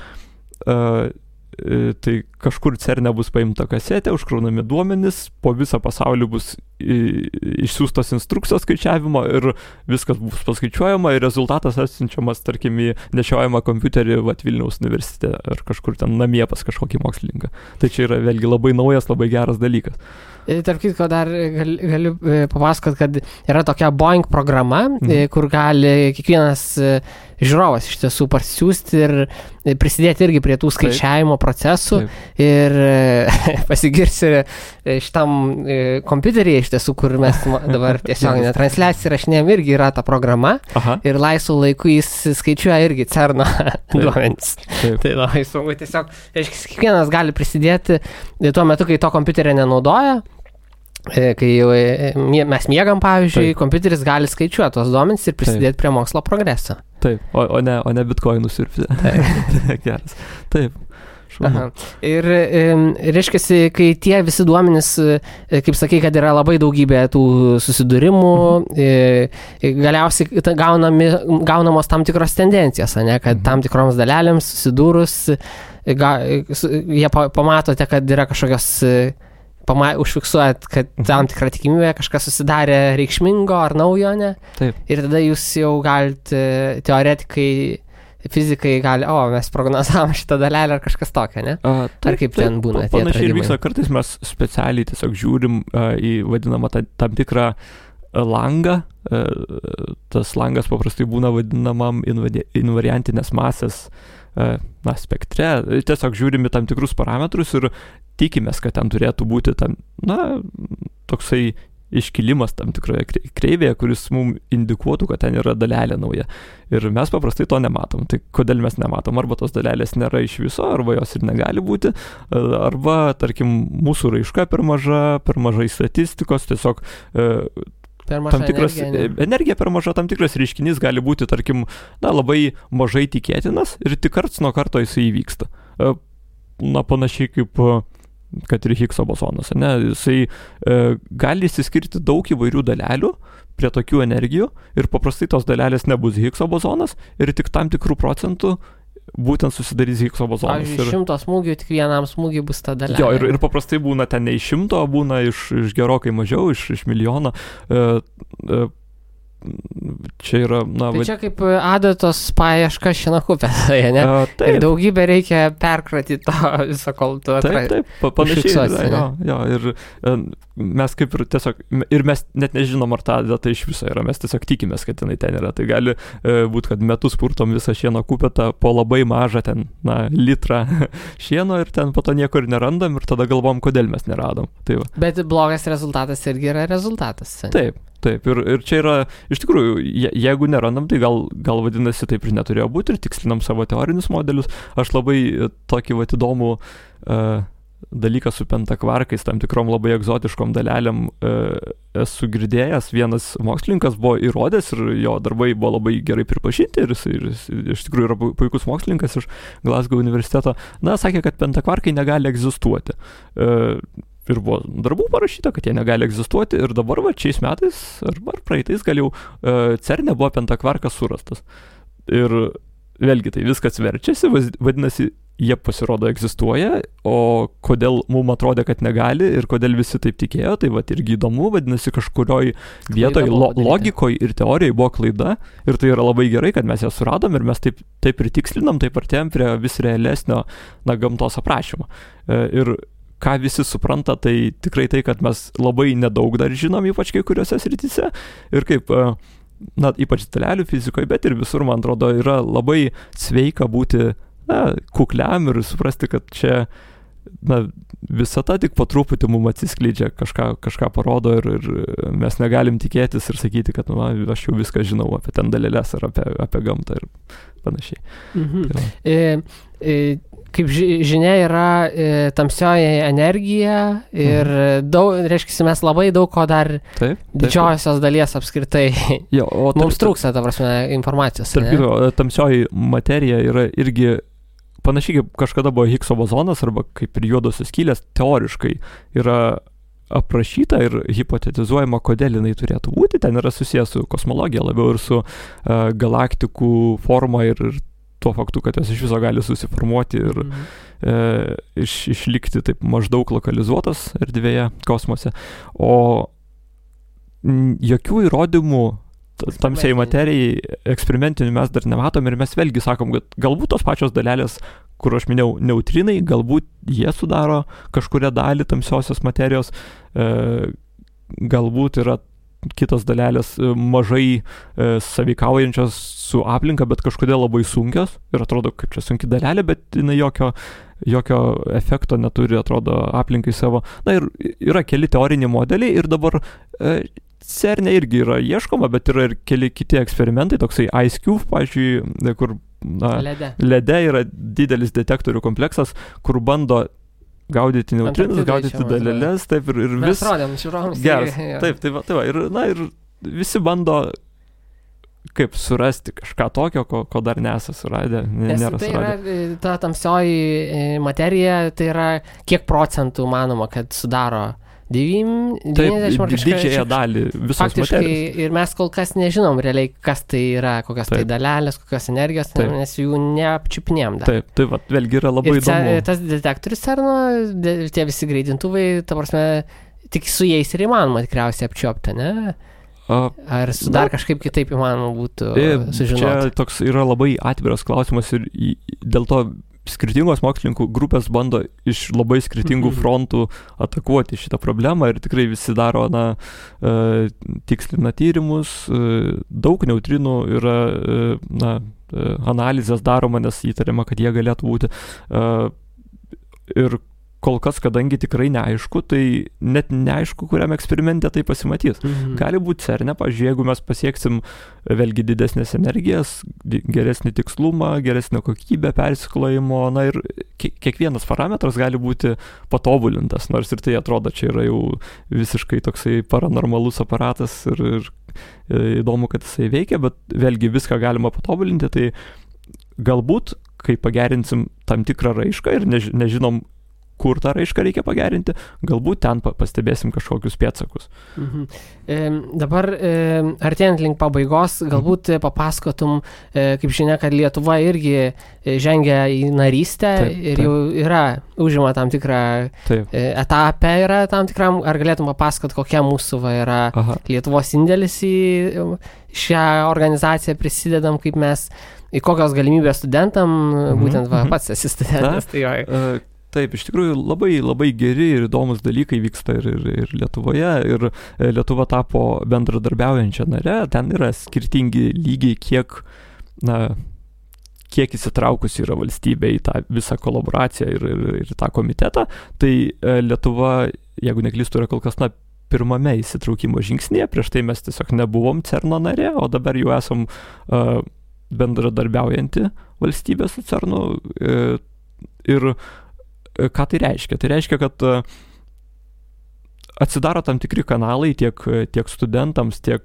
B: tai kažkur CERNE bus paimta kasetė, užkraunami duomenys, po visą pasaulį bus išsiųstos instrukcijos skaičiavimo ir viskas bus paskaičiuojama ir rezultatas atsiunčiamas, tarkim, į nešiojamą kompiuterį Vilniaus universitete ar kažkur ten namie pas kažkokį mokslininką. Tai čia yra vėlgi labai naujas, labai geras dalykas.
A: Tarp kitko dar galiu papasakot, kad yra tokia Boeing programa, kur gali kiekvienas žiūrovas iš tiesų parsiųsti ir prisidėti irgi prie tų skaičiavimo procesų. Taip. Ir pasigirsiu šitam kompiuteryje iš tiesų, kur mes dabar tiesioginę transliaciją rašinėjom, irgi yra ta programa. Aha. Ir laisvų laikų jis skaičiuoja irgi CERNo duomenys. Tai labai smagu, tiesiog kiekvienas gali prisidėti tuo metu, kai to kompiuterio nenaudoja. Kai mes miegam, pavyzdžiui, kompiuteris gali skaičiuoti tos duomenys ir prisidėti prie mokslo progreso.
B: Taip, o ne bitkoinus siurbti. Geras. Taip.
A: Aha. Ir reiškiasi, kai tie visi duomenys, kaip sakai, kad yra labai daugybė tų susidūrimų, galiausiai gaunamos tam tikros tendencijos, ne, kad tam tikroms dalelėms susidūrus, jie pamatote, kad yra kažkokios užfiksuojat, kad tam tikrą tikimybę kažkas susidarė reikšmingo ar naujo, ne? Taip. Ir tada jūs jau galite, teoretikai, fizikai gali, mes prognozavom šitą dalelę ar kažkas tokio, ne? Ar kaip ten būna tie atradimai?
B: Panašiai ir vyksta, kartais mes specialiai tiesiog žiūrim į vadinamą tam tikrą langą. Tas langas paprastai būna vadinamam invariantinės masės spektre. Tiesiog žiūrime tam tikrus parametrus ir tikimės, kad ten turėtų būti toksai iškilimas tam tikroje kreivėje, kuris mums indikuotų, kad ten yra dalelė nauja. Ir mes paprastai to nematom. Tai kodėl mes nematom? Arba tos dalelės nėra iš viso, arba jos ir negali būti, arba, tarkim, mūsų raiška per mažai statistikos, tiesiog tam tikras energija per maža, tam tikras reiškinys gali būti, tarkim, labai mažai tikėtinas ir tik karts nuo karto jisai įvyksta. Panašiai kaip kad ir Higgso bosonas, ne? Jisai gali išsiskirti daug įvairių dalelių prie tokių energijų ir paprastai tos dalelės nebus Higgso bosonas ir tik tam tikrų procentų būtent susidarys Higgso bozonas.
A: Pavyzdžiui, 100 smūgių, tik vienam smūgiui bus ta dalelė.
B: Jo, ir paprastai būna ten ne iš 100, būna iš gerokai mažiau, iš milijono. čia yra,
A: Tai čia kaip adatos paieška šienakupėje, ne? Ir daugybę reikia perkratyti tą visą, kol tu
B: Taip, panašiai. Jo, ir mes kaip ir tiesiog, ir mes net nežinom, ar ta adata iš viso yra, mes tiesiog tikimės, kad jinai ten yra. Tai gali būti, kad metus purtom visą šieno kupetą po labai mažą ten, litrą šieno ir ten po to nieko ir nerandam ir tada galvom, kodėl mes neradom. Tai va.
A: Bet blogas rezultatas irgi yra rezultatas.
B: Taip, ir čia yra, iš tikrųjų, jeigu nerandam, tai gal vadinasi taip ir neturėjo būti ir tikslinam savo teorinius modelius. Aš labai tokį įdomų dalyką su pentakvarkais, tam tikrom labai egzotiškom dalelėm esu girdėjęs. Vienas mokslininkas buvo įrodęs ir jo darbai buvo labai gerai pripažinti ir jis iš tikrųjų yra puikus mokslininkas iš Glasgow universiteto. Sakė, kad pentakvarkai negali egzistuoti. Ir buvo darbų parašyta, kad jie negali egzistuoti ir dabar šiais metais arba praeitais gal jau CERNe buvo pentakvarkas surastas. Ir vėlgi tai viskas verčiasi, vadinasi, jie pasirodo egzistuoja, o kodėl mums atrodė, kad negali ir kodėl visi taip tikėjo, tai irgi įdomu, vadinasi, kažkurioj vietoje logikoje ir teorijoje buvo klaida ir tai yra labai gerai, kad mes ją suradom ir mes taip ir tikslinam, taip artėjom prie vis realesnio gamtos aprašymo. Ir ką visi supranta, tai tikrai tai, kad mes labai nedaug dar žinom, ypač kai kuriuose srityse. Ir kaip, ypač dalelių fizikoje, bet ir visur, man atrodo, yra labai sveika būti kukliam ir suprasti, kad čia visata tik po truputį mums atsiskleidžia, kažką parodo ir mes negalim tikėtis ir sakyti, kad aš jau viską žinau apie ten dalelės ar apie gamtą ir panašiai.
A: Kaip žinia, yra tamsioji energija ir reiškia, mes labai daug ko dar didžiosios dalies apskritai. Mums trūksta, ta prasme, informacijos.
B: Tamsioji materija yra irgi panašiai kaip kažkada buvo Higgso bozonas arba kaip ir juodosios skylės, teoriškai yra aprašyta ir hipotetizuojama, kodėl jinai turėtų būti. Ten yra susijęs su kosmologija labiau ir su galaktikų forma ir tuo faktu, kad jos iš viso gali susiformuoti ir išlikti taip maždaug lokalizuotas erdvėje kosmose. O jokių įrodymų tamsiai materijai eksperimentinių mes dar nematom ir mes vėlgi sakom, kad galbūt tos pačios dalelės, kur aš minėjau, neutrinai, galbūt jie sudaro kažkuria dalį tamsiosios materijos, galbūt yra kitos dalelės mažai sąveikaujančios su aplinka, bet kažkodėl labai sunkios ir atrodo, kaip čia sunki dalelė, bet jinai jokio efekto neturi, atrodo, aplinkai savo. Ir yra keli teoriniai modeliai ir dabar CERNe irgi yra ieškoma, bet yra ir keli kiti eksperimentai, toksai IceCube, pavyzdžiui, kur lede yra didelis detektorių kompleksas, kur bando gaudyti neutrinus, gaudyti dalelės, taip ir vis...
A: Mes rodėm, žiūrovams.
B: Geras, taip, tai va, ir visi bando kaip surasti kažką tokio, ko dar nesą suradę, nėra
A: tai
B: suradę.
A: Yra, ta tamsioji materija, tai yra kiek procentų manoma, kad sudaro 90 ar
B: didžiąją dalį visos
A: faktiškai,
B: materijos.
A: Ir mes kol kas nežinom realiai, kas tai yra, kokios tai dalelės, kokios energijos, nes jų neapčiupinėjom dar.
B: Taip, tai va, vėlgi yra labai įdomu.
A: Tas detektorius CERNo, tie visi greitintuvai, ta prasme, tik su jais ir įmanoma tikriausiai apčiuopti, ne? Ar dar kažkaip kitaip įmanoma būtų sužinoti?
B: Čia toks yra labai atviras klausimas ir dėl to skirtingos mokslininkų grupės bando iš labai skirtingų frontų atakuoti šitą problemą ir tikrai visi daro, tikslina tyrimus, daug neutrinų yra, analizės daroma, nes įtariama, kad jie galėtų būti. Ir kol kas, kadangi tikrai neaišku, tai net neaišku, kuriam eksperimente tai pasimatys. Gali būti CERNe, pavyzdžiui, jeigu mes pasieksim vėlgi didesnės energijas, geresnį tikslumą, geresnę kokybę persiklojimo, ir kiekvienas parametras gali būti patobulintas, nors ir tai atrodo, čia yra jau visiškai toksai paranormalus aparatas ir įdomu, kad jisai veikia, bet vėlgi viską galima patobulinti, tai galbūt, kai pagerinsim tam tikrą raišką ir nežinom, kur tą raišką reikia pagerinti, galbūt ten pastebėsim kažkokius pėdsakus.
A: Dabar artėjant link pabaigos, galbūt papasakotum, kaip žinia, kad Lietuva irgi žengia į narystę ir jau užima tam tikrą etapę yra tam tikram, ar galėtum papasakot, kokia mūsų yra Lietuvos indėlis į šią organizaciją, prisidedam, kaip mes, į kokios galimybės studentam, būtent pats esi studentas.
B: Taip, iš tikrųjų labai geri ir įdomus dalykai vyksta ir Lietuvoje, ir Lietuva tapo bendradarbiaujančia nare, ten yra skirtingi lygiai, kiek įsitraukusi yra valstybė į tą visą kolaboraciją ir tą komitetą, tai Lietuva, jeigu neklystu, yra kol kas pirmame įsitraukimo žingsnėje, prieš tai mes tiesiog nebuvom CERN-o narė, o dabar jau esam bendradarbiaujanti valstybė su CERN-u ir ką tai reiškia? Tai reiškia, kad atsidaro tam tikri kanalai tiek studentams, tiek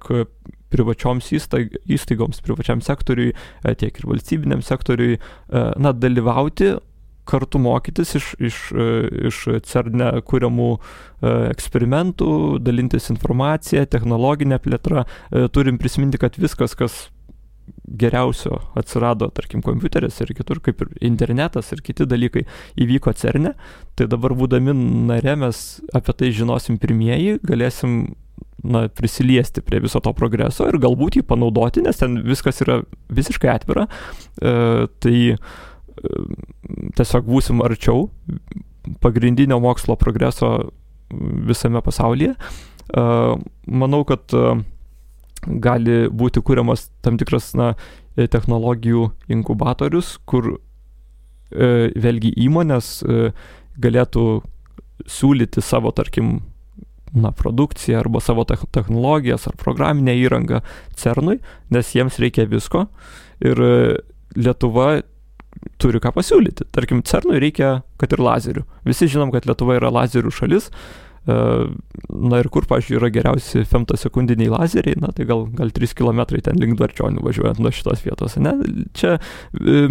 B: privačioms įstaigoms, privačiam sektoriui, tiek ir valstybiniam sektoriui, dalyvauti, kartu mokytis iš CERN-e kuriamų eksperimentų, dalintis informaciją, technologinę plėtrą. Turim prisiminti, kad viskas, kas geriausio atsirado, tarkim, kompiuteris ir kitur, kaip ir internetas ir kiti dalykai įvyko CERN-e, tai dabar būdami nare mes apie tai žinosim pirmieji, galėsim prisiliesti prie viso to progreso ir galbūt jį panaudoti, nes ten viskas yra visiškai atvira, tai tiesiog būsim arčiau pagrindinio mokslo progreso visame pasaulyje. Manau, kad gali būti kuriamas tam tikras technologijų inkubatorius, kur vėlgi įmonės galėtų siūlyti savo, tarkim, produkciją arba savo technologijas ar programinę įrangą CERN-ui, nes jiems reikia visko ir Lietuva turi ką pasiūlyti. Tarkim, CERN-ui reikia, kad ir lazerių. Visi žinom, kad Lietuva yra lazerių šalis. Ir kur, pavyzdžiui, yra geriausi femtosekundiniai lazeriai, tai gal 3 km ten link Dvarčionių važiuojant nuo šitos vietos. Čia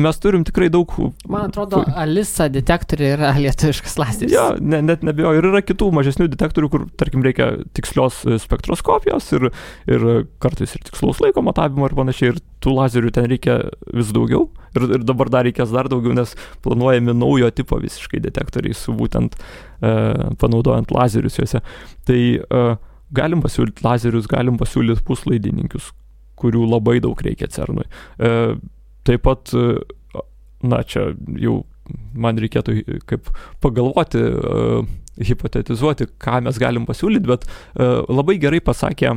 B: mes turim tikrai daug...
A: Man atrodo, ALISA detektoriai yra lietuviškas lazeris.
B: Jo, net nebijoju. Ir yra kitų mažesnių detektorių, kur, tarkim, reikia tikslios spektroskopijos ir kartais ir tikslaus laiko matavimo ir panašiai. Ir tų lazerių ten reikia vis daugiau. Ir dabar dar reikės dar daugiau, nes planuojami naujo tipo visiškai detektoriai su būtent panaudojant lazerius juose. Tai galim pasiūlyti lazerius, galim pasiūlyti puslaidininkius, kurių labai daug reikia CERN-ui. Taip pat, čia jau man reikėtų kaip pagalvoti, hipotetizuoti, ką mes galim pasiūlyti, bet labai gerai pasakė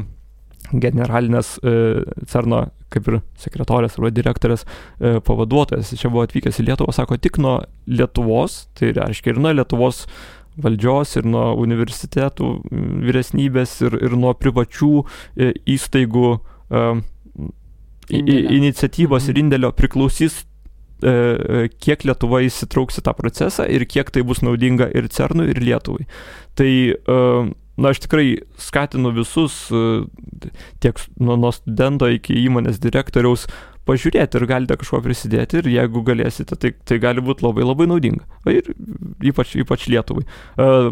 B: generalinės CERN-o kaip ir sekretorės arba direktorės pavaduotojas. Čia buvo atvykęs į Lietuvą, sako, tik nuo Lietuvos, tai reiškia ir nuo Lietuvos valdžios, ir nuo universitetų vyresnybės, ir nuo privačių įstaigų iniciatyvos ir indėlio priklausys, kiek Lietuva įsitrauks į tą procesą ir kiek tai bus naudinga ir CERN-ui, ir Lietuvai. Tai aš tikrai skatinu visus, tiek nuo studento iki įmonės direktoriaus, pažiūrėti ir galite kažko prisidėti ir jeigu galėsite, tai gali būti labai labai naudinga. Ir ypač Lietuvai.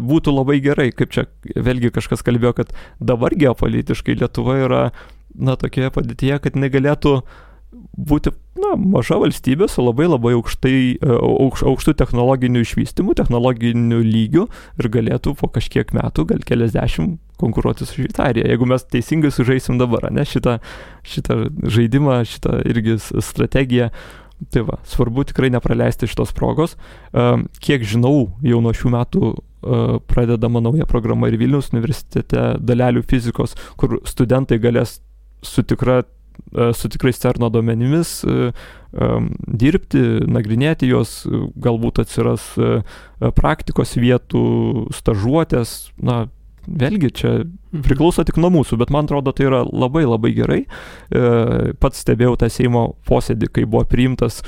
B: Būtų labai gerai, kaip čia vėlgi kažkas kalbėjo, kad dabar geopolitiškai Lietuva yra tokioje padėtyje, kad negalėtų būti maža valstybė su labai labai aukštų technologinių išvystymų, technologinių lygių ir galėtų po kažkiek metų, gal keliasdešimt, konkuruoti su Šveicarija. Jeigu mes teisingai sužaisim dabar, šitą žaidimą, šitą irgi strategiją, tai svarbu tikrai nepraleisti šitos progos. Kiek žinau, jau nuo šių metų pradedama nauja programa ir Vilniaus universitete dalelių fizikos, kur studentai galės su tikrais CERN-o duomenimis dirbti, nagrinėti juos, galbūt atsiras praktikos vietų, stažuotės, vėlgi čia priklauso tik nuo mūsų, bet man atrodo, tai yra labai labai gerai. Pats stebėjau tą Seimo posėdį, kai buvo priimtas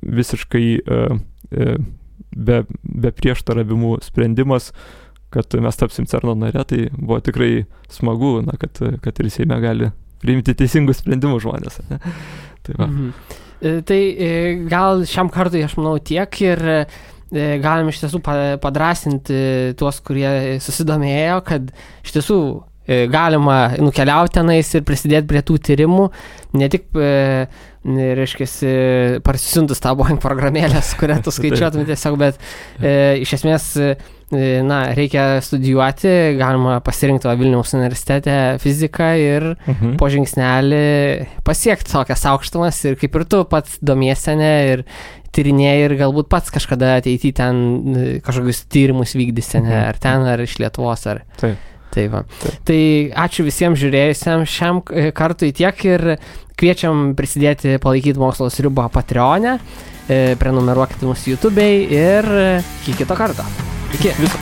B: visiškai be prieštaravimų sprendimas, kad mes tapsim CERN-o nare, tai buvo tikrai smagu, kad ir Seime gali priimti teisingus sprendimus žmonės. Tai
A: Tai gal šiam kartui, aš manau, tiek ir galim iš tiesų padrasinti tuos, kurie susidomėjo, kad iš tiesų galima nukeliauti tenais ir prisidėti prie tų tyrimų, ne tik, reiškiasi, parsisiuntus tą Boeing programėlės, kurią tu skaičiuotum tiesiog, bet iš esmės, reikia studijuoti, galima pasirinkti Vilniaus universitete fiziką ir po žingsnelį pasiekti tokias aukštumas ir kaip ir tu pats domiesi ir tyrinėjai ir galbūt pats kažkada ateityje ten kažkokius tyrimus vykdysi, ar ten, ar iš Lietuvos, ar...
B: Taip.
A: Tai va. Tai ačiū visiems žiūrėjusiems šiam kartui tiek ir kviečiam prisidėti palaikyti Mokslo sriubą Patreon'e, prenumeruokite mūsų YouTube'ai ir iki kito karto. Iki.
B: Viso.